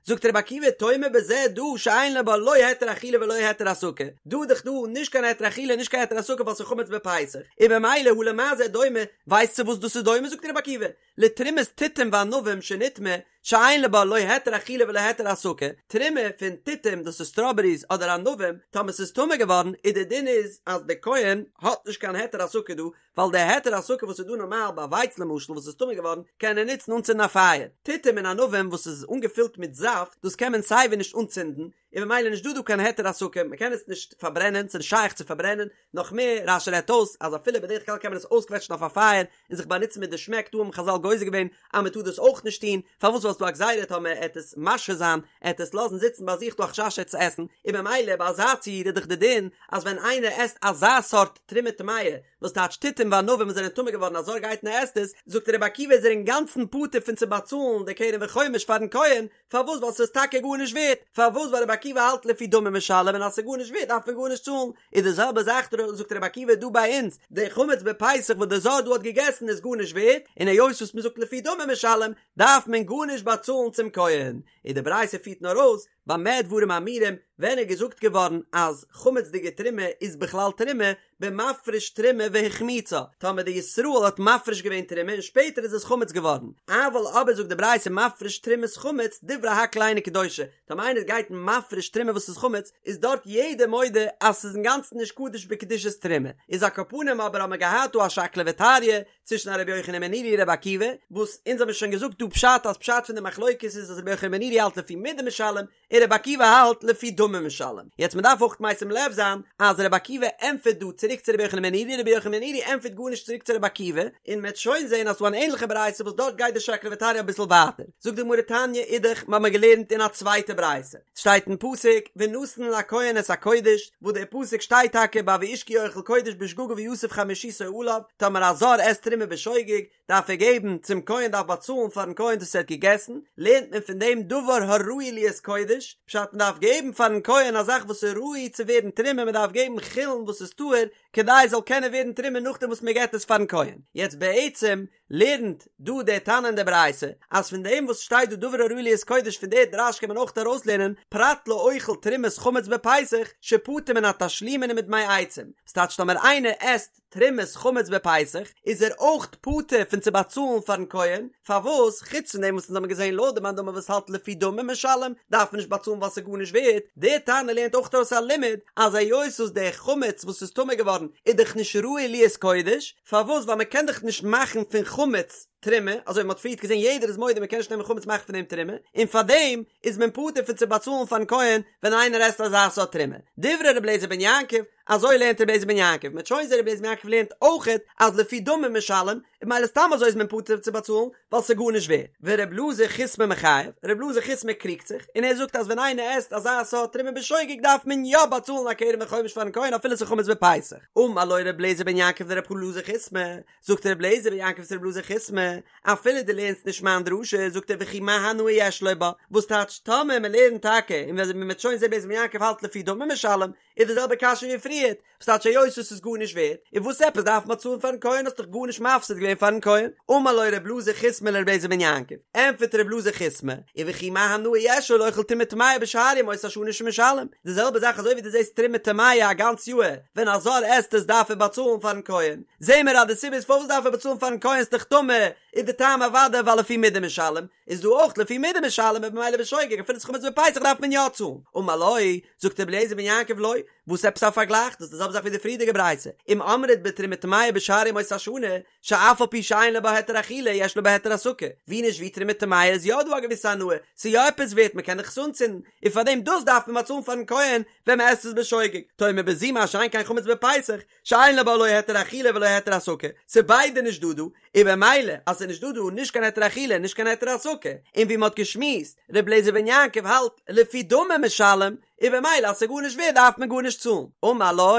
זאגט רבי עקיבא תאמר בזה דא שאין לו בה לא היתר אכילה ולא היתר הסקה, דא איז דאך דא נישט קיין היתר אכילה נישט קיין היתר הסקה ווייל ס'איז חמץ בפסח, און במילא הא למה זה דומה, ווייסט צו וואס דאס איז דומה זאגט רבי עקיבא, לתרומת תותים וענבים שנטמאה, שאין לו בה לא היתר אכילה ולא היתר הסקה, תרומה פון תותים דאס איז סטראבעריס אדער ענבים, טאמער ס'איז טמא געווארן איז די דין איז אז די כהן האט נישט קיין היתר הסקה דא, ווייל די היתר הסקה וואס איז דא נארמאל ביי ווייץ למשל וואס איז טמא געווארן קען ער נוצן אנצינדן א פייער, תותים און ענבים וואס איז אנגעפילט מיט זאפט דאס קען מען סייווי נישט אנצינדן, און במילא נישט דא דא קיין היתר הסקה, מען קען עס נישט פארברענען, ס'איז נישט שייך צו פארברענען, נאך מער, רש"י רעדט אויס אז אפילו בדרך כלל קען מען עס אויסקוועטשן אויף א פייער און זיך באנוצן מיט די שמעק, דא האבן חז"ל גוזר געווען אז מען טאר דאס אויך נישט טון, פארוואס ווייל ס'דא א גזירה טאמער ער עט עס משהה זיין, ער עט עס לאזן זיצן ביי זיך דא א חשש ער עט עס עסן, און במילא ביי אזא ציור איז דאך די דין אז ווען איינער עסט אזא סארט תרומה טמאה, וואס טייטש תותים וענבים וואס זענען טמא געווארן א זר גייט און ער עסט עס, זאגט רבי עקיבא איז ער אינגאנצן פטור פון צו באצאלן די קרן וחומש פארן כהן, פארוואס ווייל ס'איז טאקע גארנישט ווערט, פארוואס ווייל רבי עקיבא האלט לפי דמים משלם און אז ס'איז גארנישט ווערט דארף מען גארנישט צאלן, איז די זעלבע זאך זאגט רבי עקיבא דא ביי אונז, די חמץ בפסח וואס די זר דא האט געגעסן איז גארנישט ווערט, און היות וואס מ'זאגט לפי דמים משלם דארף מען גארנישט באצאלן צום כהן, און די ברייתא פירט נאר אויס. במה דברים אמורים, ווען איז געזאגט געווארן אז חמצ'דיגע תרומה איז בכלל תרומה, במפריש תרומה והחמיצה, טאמער די ישראל האט מפריש געווען תרומה און שפעטער איז עס חמץ געווארן, אבל אבער זאגט די ברייתא מפריש תרומת חמץ דברי הכל אינה קדושה, טאמער איינער גייט מפריש תרומה וואס איז חמץ, איז דארט יעדער מודה אז ס'איז אינגאנצן נישט קדוש בקדושת תרומה, איז על כל פנים אבער האט מען געהאט דא א שקלא וטריא צווישן א רבי יוחנן בן נורי און רבי עקיבא, וואס אונז האבן שוין געזאגט דא פשט אז פשט פון די מחלוקת איז אז רבי יוחנן בן נורי האלט לפי מידה משלם, און רבי עקיבא האלט לפי דמים משלם. יעצט מען דארף אויך משים לב זיין אז רבי עקיבא ענטפערט דא צוריק צו רבי יוחנן בן נורי, רבי יוחנן בן נורי ענטפערט גארנישט צוריק צו רבי עקיבא, און מען וועט שוין זען אז ס'דא אן ענליכע ברייתא וואס דארט גייט די שקלא וטריא אביסל ווייטער. זאגט די גמרא תניא אידך, מ'האמיר געלערנט אין א צווייטע ברייתא, ס'שטייט אין פסוק ונתן לכהן את הקודש, וואס דער פסוק שטייט טאקע ביי ואיש כי יאכל קודש בשגגה ויסף חמישיתו עליו, טאמער א זר עסט תרומה בשוגג, דארף ער געבן צום כהן דארף באצאלן פארן כהן דאס ער האט געגעסן, לערנט מען פון דעם דבר הראוי להיות קודש, פשט מען דארף געבן פארן כהן א זאך וואס איז ראוי צו ווערן תרומה מען דארף געבן חולין וואס איז טהור כדי עס זאל קענען ווערן תרומה נאכדעם וואס מען געבט עס פארן כהן, יעצט בעצם לערנט דא דער תנא אין דער ברייתא אז פון דעם וואס שטייט דא דבר הראוי להיות קודש פון דער דרש קען מען אויך ארויסלערנען פרט לאוכל תרומת חמץ בפסח שפטור מן התשלומין ומדמי עצים, ס'טייטש טאמער איינער עסט תרומת חמץ בפסח, איז ער אויך פטור פון צו באצאלן פארן כהן, פארוואס חוץ פון דעם וואס אונז האבן געזען לויט די מאן דאמר וואס האלט לפי דמים משלם, דארף מען נישט באצאלן ווייל ס'איז גארנישט ווערט, דער תנא לערנט אויך ארויס א לימוד אז היות וואס דער חמץ וואס איז טמא געווארן איז דאך נישט ראוי להיות קודש, פארוואס ווייל מען קען דאך נישט מאכן פון חמץ תרומה, אזוי ווי מען האט פריערט געזען יעדער איז מודה מען קען נישט נעמען חמץ מאכן פון דעם תרומה, און פארדעם איז מען פטור פון צו באצאלן פארן כהן ווען איינער עסט אזא סארט תרומה. דברי ר' אליעזר בן יעקב, אזוי לערנט רבי אליעזר בן יעקב, מ'וועט שוין זען רבי אליעזר בן יעקב לערנט אויכעט אז לפי דמים משלם, און ממילא סתם אזוי איז מען פטור צו באצאלן, ווייל ס'איז גארנישט ווערט. ורבי אלעזר חיסמא מחייב, רבי אלעזר חיסמא קריגט זיך, און ער זאגט אז ווען איינער עסט אזא סארט תרומה בשוגג דארף מען יא באצאלן א קרן וחומש פארן כהן אפילו ס'איז חמץ בפסח. אמר לו רבי אליעזר בן יעקב לרבי אלעזר חיסמא, זאגט רבי אליעזר בן יעקב צו רבי אלעזר חיסמא, אפילו דו לערנסט נישט מיין דרשה, זאגט ער וכי מה הנאה יש לו בה, וואס טייטש טאמער מ'לערנט טאקע, און ווען מ'וועט שוין זען רבי אליעזר בן יעקב האלט לפי דמים משלם, איז די זעלבע קשיא ווי פריערט, וואס טייטש היות עס איז גארנישט ווערט, און וואס עפעס דארף מען צאלן פארן כהן האסט דאך גארנישט מפסיד געווען פארן כהן, אמר לו ר' אלעזר חיסמא לר' אליעזר בן יעקב, ענטפערט ר' אלעזר חיסמא, וכי מה הנאה יש לו לאוכל תרומה טמאה בשאר ימות השנה שמשלם, די זעלבע זאך אזוי ווי דו זעסט תרומה טמאה א גאנץ יאהר, ווען א זר עסט עס דארף ער באצאלן פארן כהן, זעהן מיר אז די סיבה איז פארוואס דארף ער באצאלן פארן כהן ס'דאך טמא, איז די טעם אוודאי ווייל לפי מידה משלם, איז דא אויך לפי מידה משלם און במילא בשוגג אפילו ס'איז חמץ בפסח דארף מען יא צאלן, אמר לו, זאגט רבי אליעזר בן יעקב לא, וואס עפעס א פארגלייך, דאס איז די זעלבע זאך ווי די פריערדיגע ברייתא, אם אמרת בתרומה טמאה בשאר ימות השנה, שאף על פי שאין לו בה היתר אכילה יש לו בה היתר הסקה, ווי נישט ווי תרומה טמאה איז יא דא א געוויסע הנאה, ס'איז יא עפעס ווערט מ'קען דאך עס אנצינדן, און פארדעם דאס דארף מען באצאלן פארן כהן ווען מ'עסט עס בשוגג, תאמר בזו מה שאין כן חמץ בפסח, שאין לו בה לא היתר אכילה ולא היתר הסקה, ס'איז ביידע נישט דא דא, און במילא אז ס'איז נישט דא דא נישט קיין היתר אכילה נישט קיין היתר הסקה, און ווי מ'האט געשמועסט, ר' אליעזר בן יעקב האלט לפי דמים משלם, און במילא אז ס'איז גארנישט ווערט דארף מען גארנישט צאלן. אמר לו,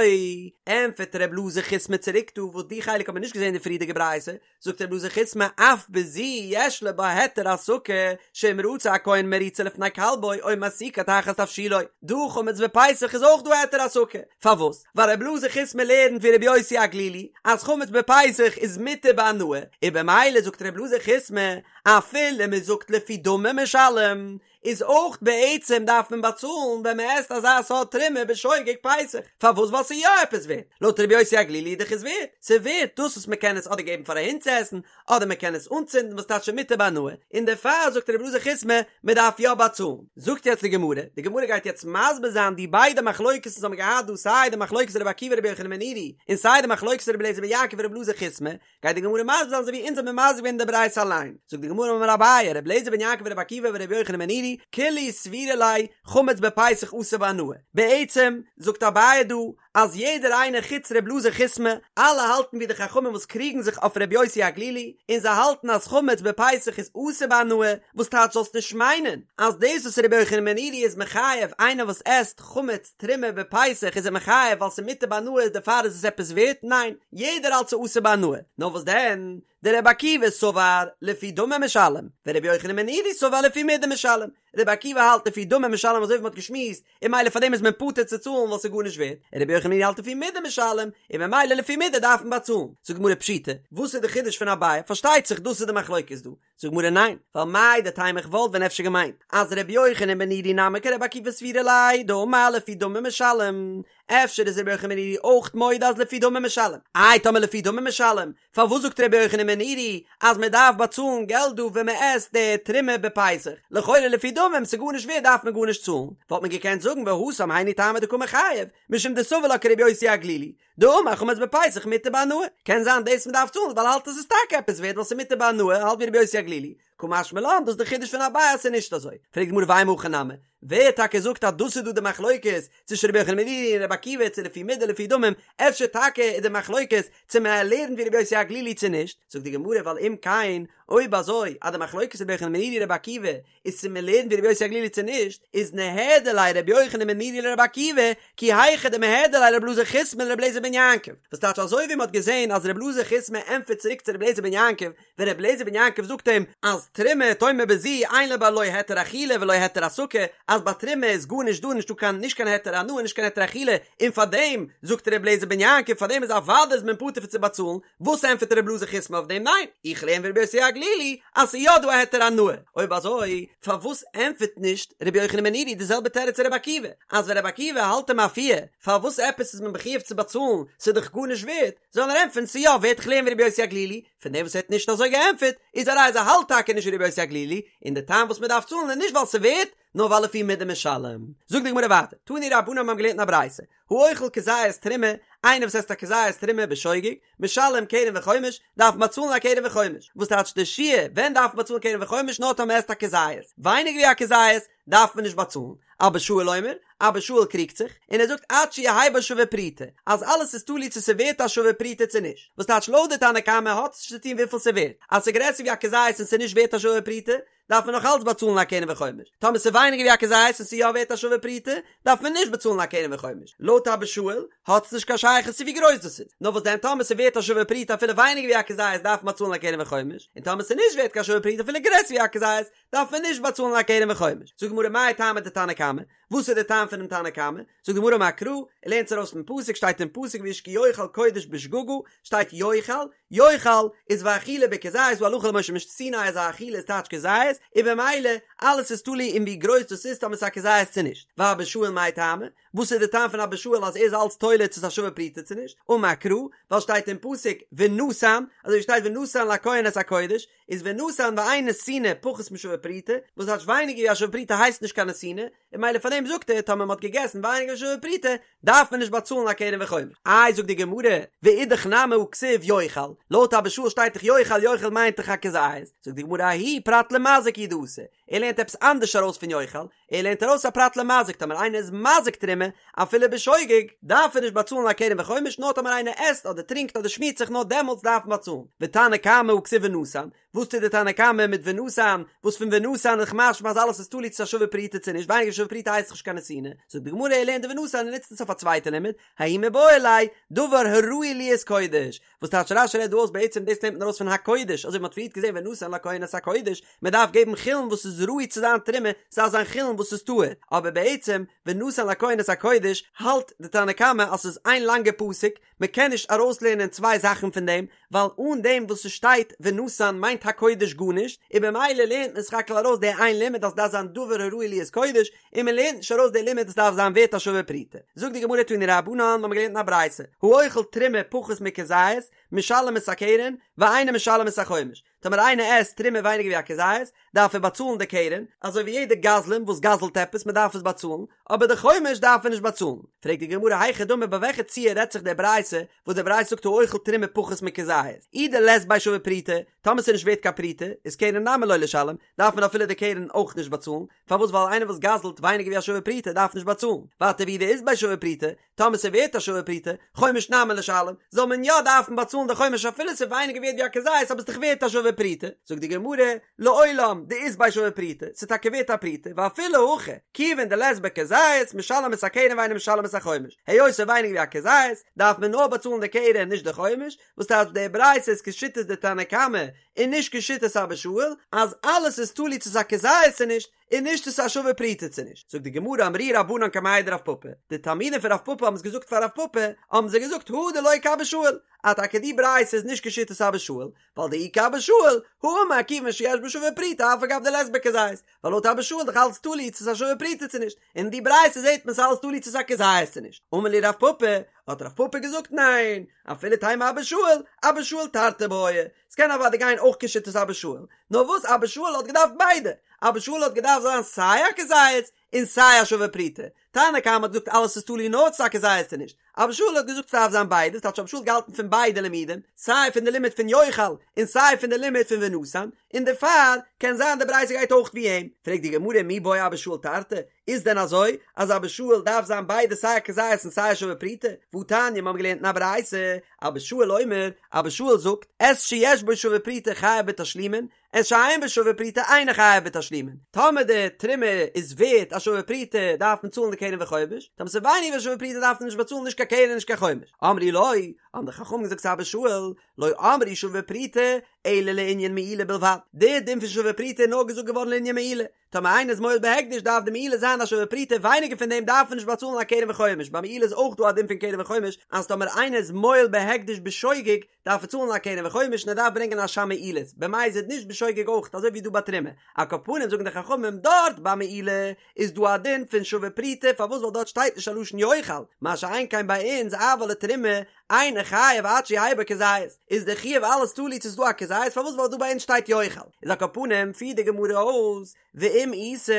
ענפערט ר' אלעזר חיסמא צוריק דא וואס די חלק האט מען נישט געזען אין די פריערדיגע ברייתא, זאגט ר' אלעזר חיסמא אף בזו יש לו בה היתר הסקה שאם רצה הכהן מריצה לפני כלבו או מסיקה תחת תבשילו, דא חמץ בפסח איז אויך דא היתר הסקה, פארוואס? ווייל ר' אלעזר חיסמא לערנט ווי ר' יוסי הגלילי אז חמץ בפסח איז מותר בהנאה, און במילא זאגט ר' אלעזר חיסמא אפילו מען זאגט לפי דמים משלם איז אויך בעצם דארף מען באצאלן ווען מען עסט אזא סארט תרומה בשוגג פסח, פארוואס ווייל ס'איז יא עפעס ווערט, לויט רבי יוסי הגלילי איז דאך עס ווערט, ס'איז ווערט דאס וואס מען קען עס אדער געבן פאר א הונט צו עסן, אדער מען קען עס אנצינדן וואס טייטש מותר בהנאה, און דערפאר זאגט רבי אלעזר חיסמא מען דארף יא באצאלן. זאגט יעצט די גמרא, די גמרא גייט יעצט מסביר זיין די ביידע מחלוקת'ן וואס האבן געהאט דא סיי די מחלוקת רבי עקיבא רבי יוחנן בן נורי און סיי די מחלוקת רבי אליעזר בן יעקב און רבי אלעזר חיסמא, גייט די גמרא מסביר זיין אזוי ווי אונז האבן מסביר געווען אין די ברייתא אליין, זאגט די גמרא אמר אביי, רבי אליעזר בן יעקב ורבי עקיבא ורבי יוחנן בן נורי, כולהו סבירא להו חמץ בפסח אסור בהנאה, בעצם זאגט אביי דא אז יעדער איינער חוץ רבי אלעזר חיסמא, אלע האלטן ווי די חכמים וואס קריגן זיך אויף רבי יוסי הגלילי, און זיי האלטן אז חמץ בפסח איז אסור בהנאה, וואס טייטש זאלסט נישט מיינען אז דאס וואס רבי יוחנן בן נורי איז מחייב איינער וואס עסט חמץ תרומה בפסח איז ער מחייב ווייל ס'איז מותר בהנאה דערפאר איז עס עפעס ווערט? ניין, יעדער האלט ס'איז אסור בהנאה. נאר וואס דען? דרבי עקיבא סבר לפי דמים משלם, ורבי יוחנן בן נורי סבר לפי מידה משלם. רבי עקיבא האלט לפי דמים משלם אזוי ווי מ'האט געשמועסט, און ממילא פאר דעם איז מען פטור צו צאלן ווייל ס'איז גארנישט ווערט, און רבי יוחנן בן נורי האלט לפי מידה משלם, און ממילא לפי מידה דארף מען באצאלן. זאגט די גמרא פשיטא, וואס איז די חידוש פון אביי? פארשטייט זיך דאס איז די מחלוקת דא. זאגט די גמרא ניין, ווייל מהו דתימא איך וואלט ווען אפשר געמיינט אז רבי יוחנן בן נורי נמי כרבי עקיבא סבירא ליה דאמר לפי דמים משלם, אפשר איז רבי יוחנן בן נורי אויך מודה אז לפי דמים משלם, איי טאמער לפי דמים משלם, פארוואס זאגט רבי יוחנן בן נורי אז מען דארף באצאלן געלט דא ווען מען עסט די תרומה בפסח, לכאורה לפי דמים ס'איז גארנישט ווערט דארף מען גארנישט צאלן, וואלט מען געקענט זאגן והתם היינו טעמא דקא מיחייב, משום דסבר לה כרבי יוסי הגלילי, דאמר חמץ בפסח מותר בהנאה, קען זיין דאס מ'דארף צאלן ווייל ער האלט עס איז טאקע עפעס ווערט ווייל ס'איז מותר בהנאה, האלט ווי רבי יוסי הגלילי, קא משמע לן דאס איז די חידוש פון אביי אז ס'איז נישט אזוי, פרעגט די גמרא ואימא הכי נמי, ווער טאקע זאגט אז דאס איז דא די מחלוקת צווישן רבי יוחנן בן נורי און רבי עקיבא צו לפי מידה לפי דמים, אפשר טאקע איז די מחלוקת צו מען לערנט ווי רבי יוסי הגלילי צו נישט, זאגט די גמרא ווייל אם כן אויב אזוי אז די מחלוקת רבי יוחנן בן נורי רבי עקיבא איז צו מען לערנט ווי רבי יוסי הגלילי צו נישט, איז ניהדר ליה רבי יוחנן בן נורי לרבי עקיבא, כי היכי דמיהדר ליה רבי אלעזר חיסמא לרבי אליעזר בן יעקב, וואס טייטש אזוי ווי מען האט געזען אז רבי אלעזר חיסמא ענטפערט צוריק צו רבי אליעזר בן יעקב, ווען רבי אליעזר בן יעקב זאגט אים אז תרומה תאמר בזו אין בה לא היתר אכילה ולא היתר הסקה, אז ביי תרומה איז גארנישט דא נישטא קיין נישט קיין היתר הנאה נישט קיין היתר אכילה, און פארדעם זאגט רבי אליעזר בן יעקב פארדעם איז אוודאי איז מען פטור פון צו באצאלן, וואס ענטפערט רבי אלעזר חיסמא אויף דעם? ניין, איך לערן ווי רבי יוסי הגלילי אז ס'איז יא דא א היתר הנאה. אויב אזוי פארוואס ענטפערט נישט רבי יוחנן בן נורי די זעלבע תירוץ צו רבי עקיבא, אז ווען רבי עקיבא האלט אים אפיר פארוואס עפעס איז מען מחויב צו באצאלן, ס'איז דאך גארנישט ווערט, זאל ער ענטפערן ס'איז יא ווערט איך לערן ווי רבי יוסי הגלילי, פון דעם וואס ער האט נישט אזוי געענטפערט איז א ראיה אז ער האלט טאקע נישט ווי רבי יוסי הגלילי, און די טעם וואס מ'דארף צאלן איז נישט ווייל ס'איז ווערט, נאר ווייל לפי מידה משלם. זאגט די גמרא ווייטער, תנו רבנן מיר האבן געלערנט אין א ברייתא, האוכל כזית תרומה, איינער וואס עסט א כזית תרומה בשוגג, משלם קרן וחומש, דארף מען באצאלן א קרן וחומש. וואס טייטש די שיעור, ווען דארף מען באצאלן קרן וחומש, נאר טאמער מען עסט א כזית. ווייניגער ווי א כזית, דארף מען נישט באצאלן. אבא שאול אומר, אבא שאול קריגט זיך, און ער זאגט עד שיהא בו שווה פרוטה, אז אלעס איז תלוי צו ס'ווערט א שווה פרוטה צו נישט. וואס טייטש לויט די תנא קמא האט עס נישט צו טון וויפיל ס'ווערט. אז ס'גרעסער ווי א כזית און ס'נישט ווערט א שווה פרוטה, דארף מען נאך אלץ באצאלן א קרן וחומש, טאמער ס'איז ווייניגער ווי א כזית און ס'איז יא ווערט א שווה פרוטה, דארף מען נישט באצאלן א קרן וחומש. לויט אבא שאול האט עס נישט קיין שייכות צו ווי גרויס דאס איז, נאר וואס דען טאמער ס'איז ווערט א שווה פרוטה אפילו ווייניגער ווי א כזית דארף מען באצאלן א קרן וחומש, און טאמער ס'איז נישט ווערט קיין שווה פרוטה אפילו גרעסער ווי א כזית דארף מען נישט באצאלן א קרן וחומש. זאגט די גמרא מאי טעמא דתנא קמא, וואס איז די טעם פונעם תנא קמא? זאגט די גמרא אמר קרא, ער לערנט עס ארויס פון פסוק, שטייט אין פסוק ואיש כי יאכל קודש בשגגה, שטייט יאכל, יאכל איז ואכילה בכזית, דא הלכה למשה מסיני אז א אכילה איז טייטש כזית, און במילא אלעס איז תלוי אין ווי גרויס דאס איז טאמער ס'איז א כזית צו נישט. ואבא שאול מאי טעמא? וואס איז די טעם פון אבא שאול אז ער איז אלץ תולה צו ס'איז א שווה פרוטה צו נישט? אמר קרא, ווייל שטייט אין פסוק ונתן, אזוי ווי שטייט ונתן לכהן את הקודש, איז ונתן ואין נתינה פחות משווה פרוטה, וואס טייטש ווייניגער ווי א שווה פרוטה הייסט נישט קיין נתינה, און ממילא פאר דעם זאגט ער טאמער מ'האט געגעסן ווייניגער ווי שווה פרוטה דארף מען נישט באצאלן א קרן וחומש. איי זאגט די גמרא, ואידך נמי הא כתיב יאכל, לויט אבא שאול שטייט דאך יאכל יאכל מיינט דאך א כזית, זאגט די גמרא ההוא פרט למזיק הוא דאתא, ער לערנט עפעס אנדערש ארויס פון יאכל, ער לערנט ארויס א פרט למזיק טאמער איינער איז מזיק תרומה אפילו בשוגג דארף ער נישט באצאלן א קרן וחומש נאר טאמער איינער עסט אדער טרינקט אדער שמירט זיך נאר דעמאלטס דארף מען באצאלן ותנא קמא הא כתיב ונתן וואס טוט די תנא קמא מיט ונתן וואס פון ונתן איז משמע אז אלעס איז תלוי צו ס'איז א שווה פרוטה צו נישט ווייניגער שווה פרוטה הייסט נישט קיין נתינה זאגט די גמרא ער לערנט די ונתן און נוצט עס אויף א צווייטע לימוד ההוא מיבעי ליה דבר הראוי להיות קודש וואס טייטש רש"י רעדט דא אויס בעצם דאס לערנט מען ארויס פון הקודש אזוי ווי מ'האט פריערט געזען ונתן לכהן את הקודש מען דארף געבן חולין וואס איז ראוי צו זיין תרומה ס'דארף זיין חולין וואס איז טהור אבער בעצם ונתן לכהן את הקודש האלט די תנא קמא אז ס'איז איין לאנגע פסוק מען קען נישט ארויסלערנען צוויי זאכן פון דעם ווייל אן דעם וואס ס'שטייט ונתן מיינט הקודש גארנישט און במילא לערנט מען סך הכל ארויס די איין לימוד אז ס'דארף זיין דבר הראוי להיות קודש און מען לערנט נישט ארויס די לימוד אז ס'דארף זיין ווערט א שווה פרוטה. זאגט די גמרא תנו רבנן, מ'האמיר געלערנט אין א ברייתא, האוכל תרומה פחות מכזית, משלם את הקרן, ואינו משלם את החומש. טאמער איינער עסט תרומה ווייניגער ווי א כזית, דארף ער באצאלן די קרן, אזוי ווי יעדער גזלן וואס גזל'ט עפעס, מען דארף עס באצאלן, אבער די חומש דארף ער נישט באצאלן. פרעגט די גמרא היכי דמי ביי וועלכע ציור רעדט זיך די ברייתא, וואס די ברייתא זאגט האוכל תרומה פחות מכזית, אי דלית ביה שווה פרוטה, טאמער ס'איז נישט ווערט קיין פרוטה, איז קרן נמי לא לישלם, דארף מען אפילו די קרן אויך נישט באצאלן, פארוואס ווייל איינער וואס גזל'ט ווייניגער ווי א שווה פרוטה דארף נישט באצאלן, ווייטער ואי דאית ביה שווה פרוטה, טאמער ס'איז ווערט א שווה פרוטה, חומש נמי לישלם, זאל מען יא דארפן באצאלן די חומש אפילו ס'איז ווייניגער ווערט ווי א כזית אבער ס'איז דאך ווערט א שווה פרוטה, זאגט די גמרא, לעולם דאית ביה שווה פרוטה, ס'איז טאקע ווערט א פרוטה, ואפילו הכי, כיוון דלית ביה כזית, משלם את הקרן ואינו משלם את החומש, היות ס'איז ווייניגער ווי א כזית, דארף מען נאר באצאלן די קרן נישט די חומש, וואס טייטש די ברייתא איז כשיטת די תנא קמא און נישט כשיטת אבא שאול, אז אלעס איז תלוי צו ס'איז א כזית צו נישט, און נישט צו ס'איז א שווה פרוטה צו נישט. זאגט די גמרא אמרוה רבנן קמיה דרב פפא, די תלמידים פון רב פפא האבן עס געזאגט פאר רב פפא, האבן זיי געזאגט הא דלא כאבא שאול, אז טאקע די ברייתא איז נישט כשיטת אבא שאול, ווייל דאי כאבא שאול, הא אמר כיוון שיש בו שווה פרוטה אף על גב דלית ביה כזית, ווייל לויט אבא שאול איז דאך אלץ תלוי צו ס'איז א שווה פרוטה צו נישט, און אין די ברייתא זעט מען ס'איז אלץ תלוי צו ס'איז א כזית צו נישט. אמר להו רב פפא, האט רב פפא געזאגט ניין, אפילו תימא אבא שאול, אבא שאול תרתי בעי, ס'קען אוודאי גיין אויך כשיטת אבא שאול, נאר וואס אבא שאול האט געדארפט ביידע, אבא שאול האט געדארפט זיין סיי א כזית און סיי א שווה פרוטה, תנא קמא האט געזאגט אלעס איז תלוי נאר צו ס'איז א כזית צו נישט, אבא שאול האט געזאגט ס'דארף זיין ביידע, ס'טייטש אבא שאול האט געהאלטן פון ביידע לימודים, סיי פון די לימוד פון יאכל און סיי פון די לימוד פון ונתן, און דערפאר קען זיין די ברייתא גייט אויך ווי אים. פרעגט די גמרא מי בעי אבא שאול תרתי, איז דען אזוי אז אבא שאול דארף זיין ביידע סיי א כזית און סיי א שווה פרוטה? והתניא מיר האבן געלערנט אין א ברייתא, אבא שאול אומר, אבא שאול זאגט, את שיש בו שווה פרוטה חייב בתשלומין, את שאין בו שווה פרוטה אינו חייב בתשלומין. טאמער די תרומה איז ווערט א שווה פרוטה דארף מען צאלן די קרן וחומש, טאמער ס'איז ווייניגער ווי א שווה פרוטה דארף מען נישט באצאלן נישט קיין קרן נישט קיין חומש. אמרו לו, האבן די חכמים געזאגט צו אבא שאול, לא אמרו שווה פרוטה אלא לענין מעילה בלבד, די דין פון שווה פרוטה איז נאר געזאגט געווארן לענין מעילה, טאמער איינער איז מועל בהקדש דארף די מעילה זיין א שווה פרוטה ווייניגער פון דעם דארף מען נישט באצאלן א קרן וחומש, ביי מעילה איז אויך דא א דין פון קרן וחומש אז טאמער איינער איז מועל בהקדש בשוגג דארף ער צאלן א קרן וחומש און ער דארף ברענגען אשם מעילות, במזיד נישט בשוגג אויך אזוי ווי דא ביי תרומה, על כל פנים זאגן די חכמים דארט ביי מעילה איז דא א דין פון שווה פרוטה פארוואס ווייל דארט שטייט נישט א לשון יאכל, מה שאין כן ביי אונז אבל לתרומה אינו חייב עד שיהא בו כזית, איז די חיוב אלעס תלוי צו ס'איז דא א כזית, פארוואס ווייל דא ביי אונז שטייט יאכל, איז על כל פנים פירט די גמרא אויס, ואם איתא,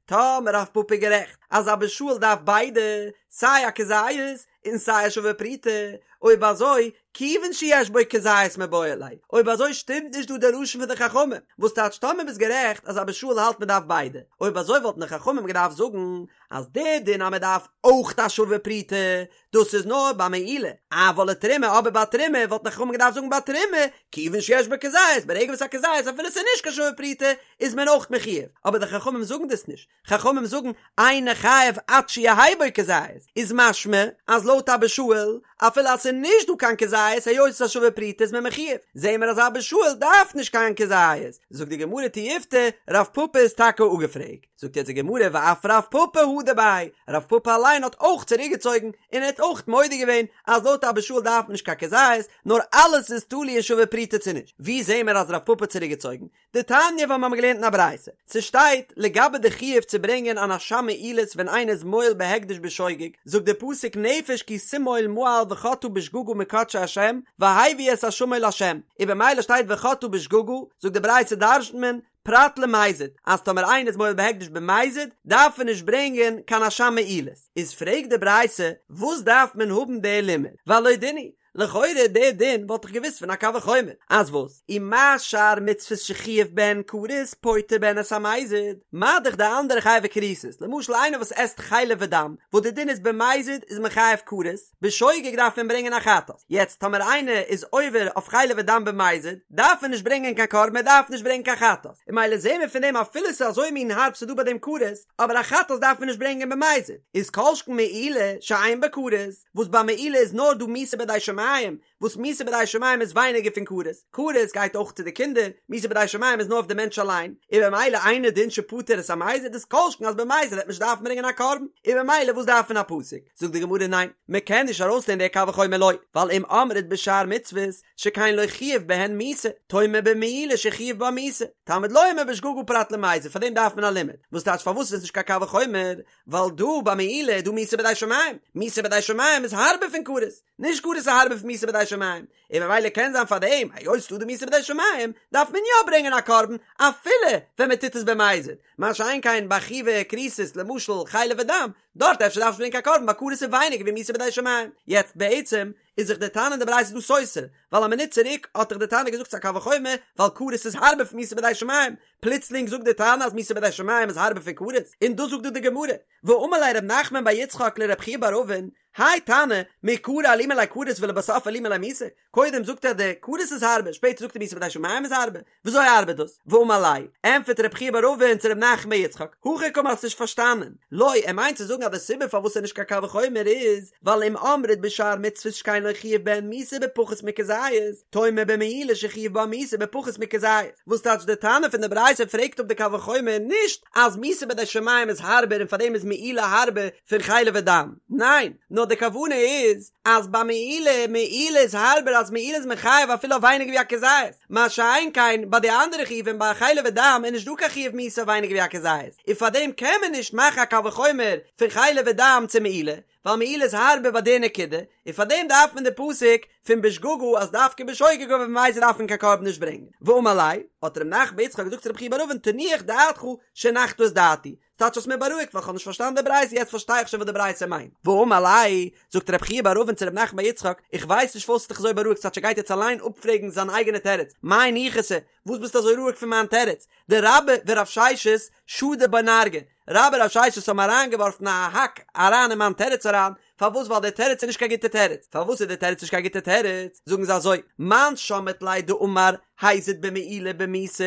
טאמער רב פפא איז גערעכט אז אבא שאול דארף ביידע, סיי א כזית און סיי א שווה פרוטה, אויב אזוי, כיוון שיש בו כזית מיבעי ליה, אויב אזוי שטימט נישט דא די לשון פון די חכמים, וואס טייטש טאמער ביסט גערעכט אז אבא שאול האלט מען דארף ביידע, אויב אזוי וואלטן די חכמים געדארפט זאגן אז די דין אז מען דארף אויך א שווה פרוטה, דאס איז נאר ביי מעילה, אבל לתרומה אבער ביי תרומה וואלטן די חכמים געדארפט זאגן ביי תרומה, כיוון שיש בו כזית, ברגע וואס א כזית אפילו ס'איז נישט קיין שווה פרוטה איז מען אויך מחויב, אבער די חכמים זאגן דאס נישט, חכמים זאגן אינו חייב עד שיהא בו כזית, איז משמע אז לויט אבא שאול אפילו אז ס'איז נישט דא קיין כזית היות ס'איז א שווה פרוטה איז מען מחויב, זעהן מיר אז אבא שאול דארף נישט קיין כזית, זאגט די גמרא תיובתא, רב פפא איז טאקע אפגעפרעגט. זאגט יעצט די גמרא ואף רב פפא הדר ביה, רב פפא אליין האט אויך צוריקגעצויגן און ער האט אויך מודה געווען אז לויט אבא שאול דארף מען נישט קיין כזית נאר אלעס איז תלוי אין שווה פרוטה צו נישט, ווי זעהן מיר אז רב פפא האט צוריקגעצויגן? דתניא ווייל מיר האבן געלערנט אין א ברייתא, ס'שטייט לגבי די חיוב צו ברענגען אן אשם מעילות ווען איינער איז מועל בהקדש בשוגג, זאגט די פסוק נפש כי תמעול מעל וחטאה בשגגה מקדשי השם והביא את אשמו לה', און במילא שטייט וחטאה בשגגה, זאגט די ברייתא דרש'נט מען פרט למזיד, אז טאמער איינער איז מועל בהקדש במזיד, דארף ער נישט ברענגען קיין אשם מעילות. איז פרעגט די ברייתא, וואס דארף מען האבן די לימוד? והלא דין הוא, לכאורה די דין וואלט איך געוואוסט פון א קל וחומר, אז וואס? ומה שאר מצוות שחייב בהן כרת פוטר בהן את המזיד, מה דאך די אנדערע חייבי כריתות, למשל איינער וואס עסט חלב ודם, וואס די דין איז במזיד איז מען חייב כרת, בשוגג דארף מען ברענגען א חטאת, יעצט טאמער איינער איז עובר אויף חלב ודם במזיד, דארף ער נישט ברענגען קיין קרבן ער דארף נישט ברענגען קיין חטאת, און ממילא זעהן מיר פון דעם אפילו ס'איז אזוי מין הארב ס'איז דא ביי דעם כרת, אבער א חטאת דארף מען נישט ברענגען במזיד, איז כל שכן מעילה שאין בה כרת, וואס ביי מעילה איז נאר דא מיתה בידי שמים, וואס מיתה בידי שמים איז ווייניגער פון כרת, כרת גייט אויך צו די קינדער, מיתה בידי שמים איז נאר אויף די מענטש אליין, און במילא אינו דין שפטר את המזיד איז כל שכן אז במזיד וועט מען נישט דארפן ברענגען א קרבן, און במילא וואס דארף מען א פסוק? זאגט די גמרא ניין, מען קען נישט ארויסלערנען די קל וחומר לא, ווייל אם אמרת בשאר מצוות שכן לא חייב בהן מיתה, תאמר במעילה שחייב בה מיתה, תלמוד לומר בשגגה פרט למזיד, פאר דעם דארף מען א לימוד, וואס טייטש פארוואס איז עס נישט קיין קל וחומר, ווייל דא ביי מעילה איז דא מיתה בידי שמים, מיתה בידי שמים איז הארבער פון כרת, נישט כרת איז הארבער פון מיתה בידי שמים, און ממילא קען זיין פאר דעם, היות ס'דא די מיתה בידי שמים, דארף מען יא ברענגען א קרבן, אפילו ווען מען טוט עס במזיד, מה שאין כן ביי חייבי כריתות למשל חלב ודם, דארט אפשר דארף מען נישט ברענגען קיין קרבן ווייל כרת איז ווייניגער ווי מיתה בידי שמים. יעצט בעצם איז זיך די תנא אין די ברייתא דא סותר, ווייל א מינוט צוריק האט דאך די תנא געזאגט ס'איז א קל וחומר ווייל כרת איז הארבער פון מיתה בידי שמים, פלוצלינג זאגט די תנא אז מיתה בידי שמים איז הארבער פון כרת, און דאס זאגט דא די גמרא, ואמר ליה רב נחמן בר יצחק לרב חייא בר אבין, האי תנא, מעיקרא אלימא ליה כרת ולבסוף אלימא ליה מיתה, קודם זאגט ער די כרת איז הארבער, שפעטער זאגט ער מיתה בידי שמים איז הארבער, וויאזוי ארבעט דאס? ואמר ליה, ענטפערט רב חייא בר אבין צו רב נחמן בר יצחק, הכי קאמר האסט נישט פארשטאנען, לא, ער מיינט צו זאגן אז די סיבה פארוואס ס'איז נישט קיין קל וחומר איז, ווייל אם אמרת בשאר מצוות שכן לא חייב בהן מיתה בפחות מכזית, תאמר במעילה שחייב בה מיתה בפחות מכזית, וואס טייטש די תנא פון די ברייתא פרעגט אפ די קל וחומר נישט אז מיתה בידי שמים איז הארבער און פארדעם איז מעילה הארבער פון חלב ודם, ניין, נאר די כוונה איז אז ביי מעילה, מעילה איז הארבער אז מעילה איז מחייב אפילו אויף ווייניגער ווי א כזית, מה שאין כן ביי די אנדערע חיובים ביי חלב ודם איז נישט דא קיין חיוב מיתה אויף ווייניגער ווי א כזית, און פארדעם קען מען נישט מאכן א קל וחומר פון חלב ודם צו מעילה, ווייל מעילה איז הארבער ביי די נקודה, און פאר דעם דארף מען די פסוק פון בשגגה אז דווקא בשוגג אבער במזיד דארף מען קיין קרבן נישט ברענגען. ואמר ליה, האט ר' נחמן בר יצחק געזאגט צו רב חייא בר אבין תנוח דעתך שהנחת את דעתי, ס'טייטש האסט מיר בארואיגט ווייל כ'האב נישט פארשטאנען די ברייתא יעצט פארשטיי איך שוין וואס די ברייתא מיינט. ואמר ליה, זאגט רב חייא בר אבין צו ר' נחמן בר יצחק, איך ווייס נישט פארוואס האסט דיך אזוי בארואיגט ס'טייטש ער גייט יעצט אליין אפפרעגן זיין אייגענע תירוץ, מאי ניחותא, וואס ביסטו אזוי רואיג פון מיין תירוץ? דרבה ורב ששת שדו ביה נרגא, רבה און רב ששת האבן אריינגעווארפן א האק אריין אין מיין תירוץ אריין, פארוואס ווייל דער תירוץ איז נישט קיין גוטע תירוץ, פארוואס איז דער תירוץ נישט קיין גוטע תירוץ, זאגן זיי אזוי, מאן שמעת ליה דאמר הזיד במעילה במיתה,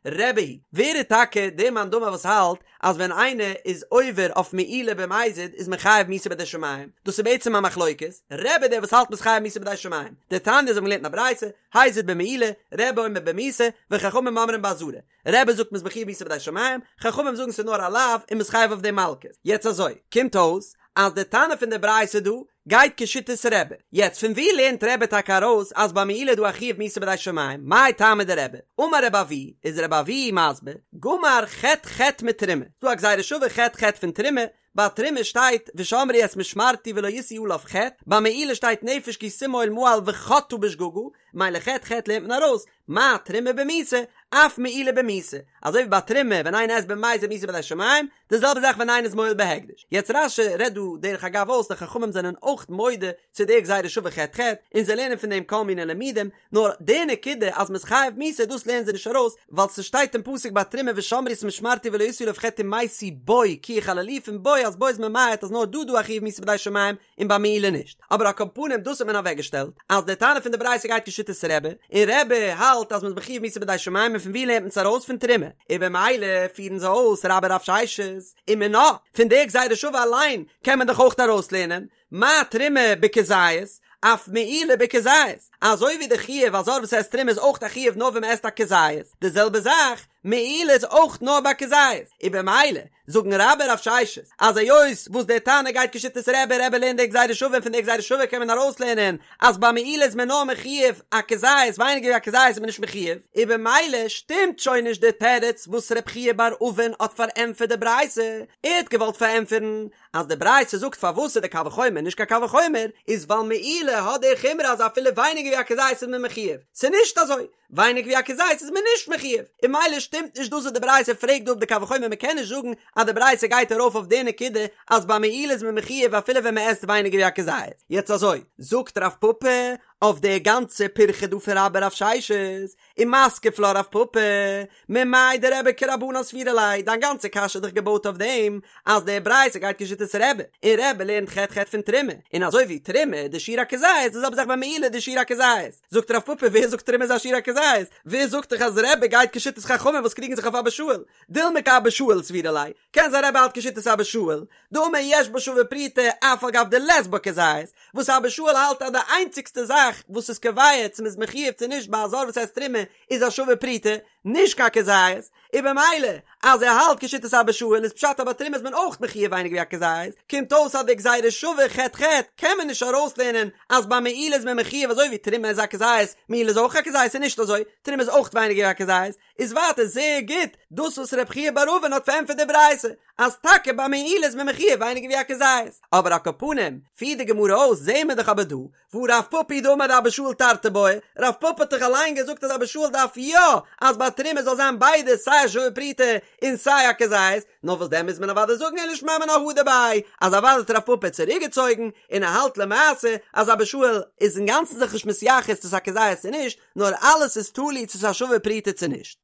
רבי היא, ווער איז טאקע דער מאן דאמר וואס האלט אז ווען איינער איז עובר אויף מעילה במזיד איז מען חייב מיתה בידי שמים, דאס איז בעצם א מחלוקת, רבי דער וואס האלט מ'איז חייב מיתה בידי שמים, דתניא אזוי האבן געלערנט אין א ברייתא, הזיד במעילה, רבי אומר במיתה, וחכמים אומרים באזהרה. רבי זאגט מ'איז מחויב מיתה בידי שמים, חכמים זאגן ס'איז נאר א לאו און מ'איז חייב אויף דעם מלקות. יעצט אזוי, קומט אויס אז די תנא פון די ברייתא דא גייט כשיטת רבי. יעצט פון וואו לערנט רבי טאקע ארויס אז ביי מעילה איז דא א חיוב מיתה בידי שמים? מאי טעמא דרבי? אמר רבי אבהו, איז רבי אבהו מסביר, גמר ח' ח' מתרומה, ס'דא א גזירה שווה ח' ח' פון תרומה, ביי תרומה שטייט ושמרו את משמרתי ולא ישאו עליו חטא, ביי מעילה שטייט נפש כי תמעול מעל וחטאה בשגגה, ממילא ח' ח' לערנט מען ארויס, מה תרומה במיתה, אף מעילה במיתה, אזוי ווי ביי תרומה ווען איינער עסט במזיד מיתה בידי שמים, די זעלבע זאך ווען איינער איז מועל בהקדש. יעצט רש"י רעדט דא דרך אגב אויס די חכמים זענען אויך מודה צו די גזירה שווה ח' ח', און זיי לערנען פון דעם כל מיני לימודים, נאר די נקודה אז מ'איז חייב מיתה דאס לערנען זיי נישט ארויס, ווייל ס'שטייט אין פסוק ביי תרומה ושמרו את משמרתי ולא ישאו עליו חטא ומתו בו כי יחללוהו פון בו אז בו איז ממעט אז נאר דא דא א חיוב מיתה בידי שמים און ביי מעילה נישט. אבער על כל פנים דאס האט מען אוועקגעשטעלט אז די תנא פון די ברייתא גייט כשיטת רבי, און רבי האלט אז מ'איז מחויב מיתה בידי שמים און פון ווי לערנט מען עס ארויס פון תרומה, און במילא פירן זיי אויס רבה ורב ששת, ומינה, פון די גזירה שווה אליין קען מען דאך אויך ארויסלערנען, מה תרומה בכזית, אף מעילה בכזית, אזוי ווי די חיוב א זר וואס עסט תרומה איז אויך א חיוב נאר ווען מען עסט א כזית, די זעלבע זאך, מעילה איז אויך נאר ביי כזית, און במילא זאגן רבה ורב ששת אז היות וואס דער תנא גייט כשיטת רבי, רבי לערנט די גזירה שווה און פון די גזירה שווה קען מען ארויסלערנען אז ביי מעילה איז מען נאר מחויב א כזית ווייניגער ווי א כזית איז מען נישט מחויב, און במילא שטימט שוין נישט די תירוץ וואס רב חייא בר אבין האט פארענטפערט די ברייתא, ער האט געוואלט פארענטפערן אז די ברייתא זאגט פארוואס איז די קל וחומר נישט קיין קל וחומר, איז ווייל מעילה האט די חומרא אז אפילו ווייניגער ווי א כזית איז מען מחויב, ס'איז נישט אזוי, ווייניגער ווי א כזית איז מען נישט מחויב, און ממילא שטימט נישט דאס וואס די ברייתא פרעגט דא אפ די קל וחומר, מ'קען נישט זאגן אז די ברייתא גייט ארויף אויף די נקודה אז ביי מעילה איז מען מחויב אפילו ווען מ'עסט ווייניגער ווי א כזית. יעצט אזוי, זאגט רב פפא אויף די גאנצע פירכא דא פון רבה ורב ששת, ומתקיף לה רב פפא, ממאי דרבי כרבנן סבירא ליה, דיין גאנצע קשיא איז דאך געבויט אויף דעם אז די ברייתא גייט כשיטת רבי, און רבי לערנט ח' ח' פון תרומה, און אזוי ווי תרומה די שיעור א כזית, די זעלבע זאך ביי מעילה די שיעור א כזית. זאגט רב פפא ווער זאגט תרומה איז א שיעור א כזית? ווער זאגט דיך אז רבי גייט כשיטת חכמים וואס קריגן זיך אויף אבא שאול? דילמא כאבא שאול סבירא ליה, קען זיין רבי האלט כשיטת אבא שאול, דאמר יש בה שווה פרוטה אף על גב דלית בה כזית, וואס אבא שאול האלט אז די איינציגסטע זאך וואס איז קובע צו מ'איז מחויב צו נישט ביי א זר וואס עסט תרומה איז א שווה פרוטה, נישט קיין כזית, און במילא אז ער האלט כשיטת אבא שאול איז פשט אז ביי תרומה איז מען אויך מחויב ווייניגער ווי א כזית, קומט אויס אז די גזירה שווה ח' ח' קען מען נישט ארויסלערנען אז ביי מעילה איז מען מחויב אזוי ווי תרומה איז א כזית, מעילה איז אויך א כזית ס'איז נישט אזוי, תרומה איז אויך ווייניגער ווי א כזית, איז ווייטער זייער גוט דאס וואס רב חייא בר אבין האט פארענטפערט די ברייתא אז טאקע ביי מעילה איז מען מחויב ווייניגער ווי א כזית, אבער על כל פנים פירט די גמרא אויס זעהן מיר דאך אבער דא והא רב פפא היא דאמר דאבא שאול תרתי בעי, רב פפא האט דאך אליין געזאגט אז אבא שאול דארף יא אז ביי תרומה זאל זיין ביידע סיי א שווה פרוטה און סיי א כזית, נאר וואס דען מוז מען אוודאי זאגן אלא שמע מינה הדר ביה אז אוודאי האט רב פפא צוריק געצויגן און ער האלט למעשה אז אבא שאול איז אינגאנצן זיך נישט מתייחס צו ס'איז א כזית צו נישט, נאר אלעס איז תלוי צו ס'איז א שווה פרוטה צו נישט.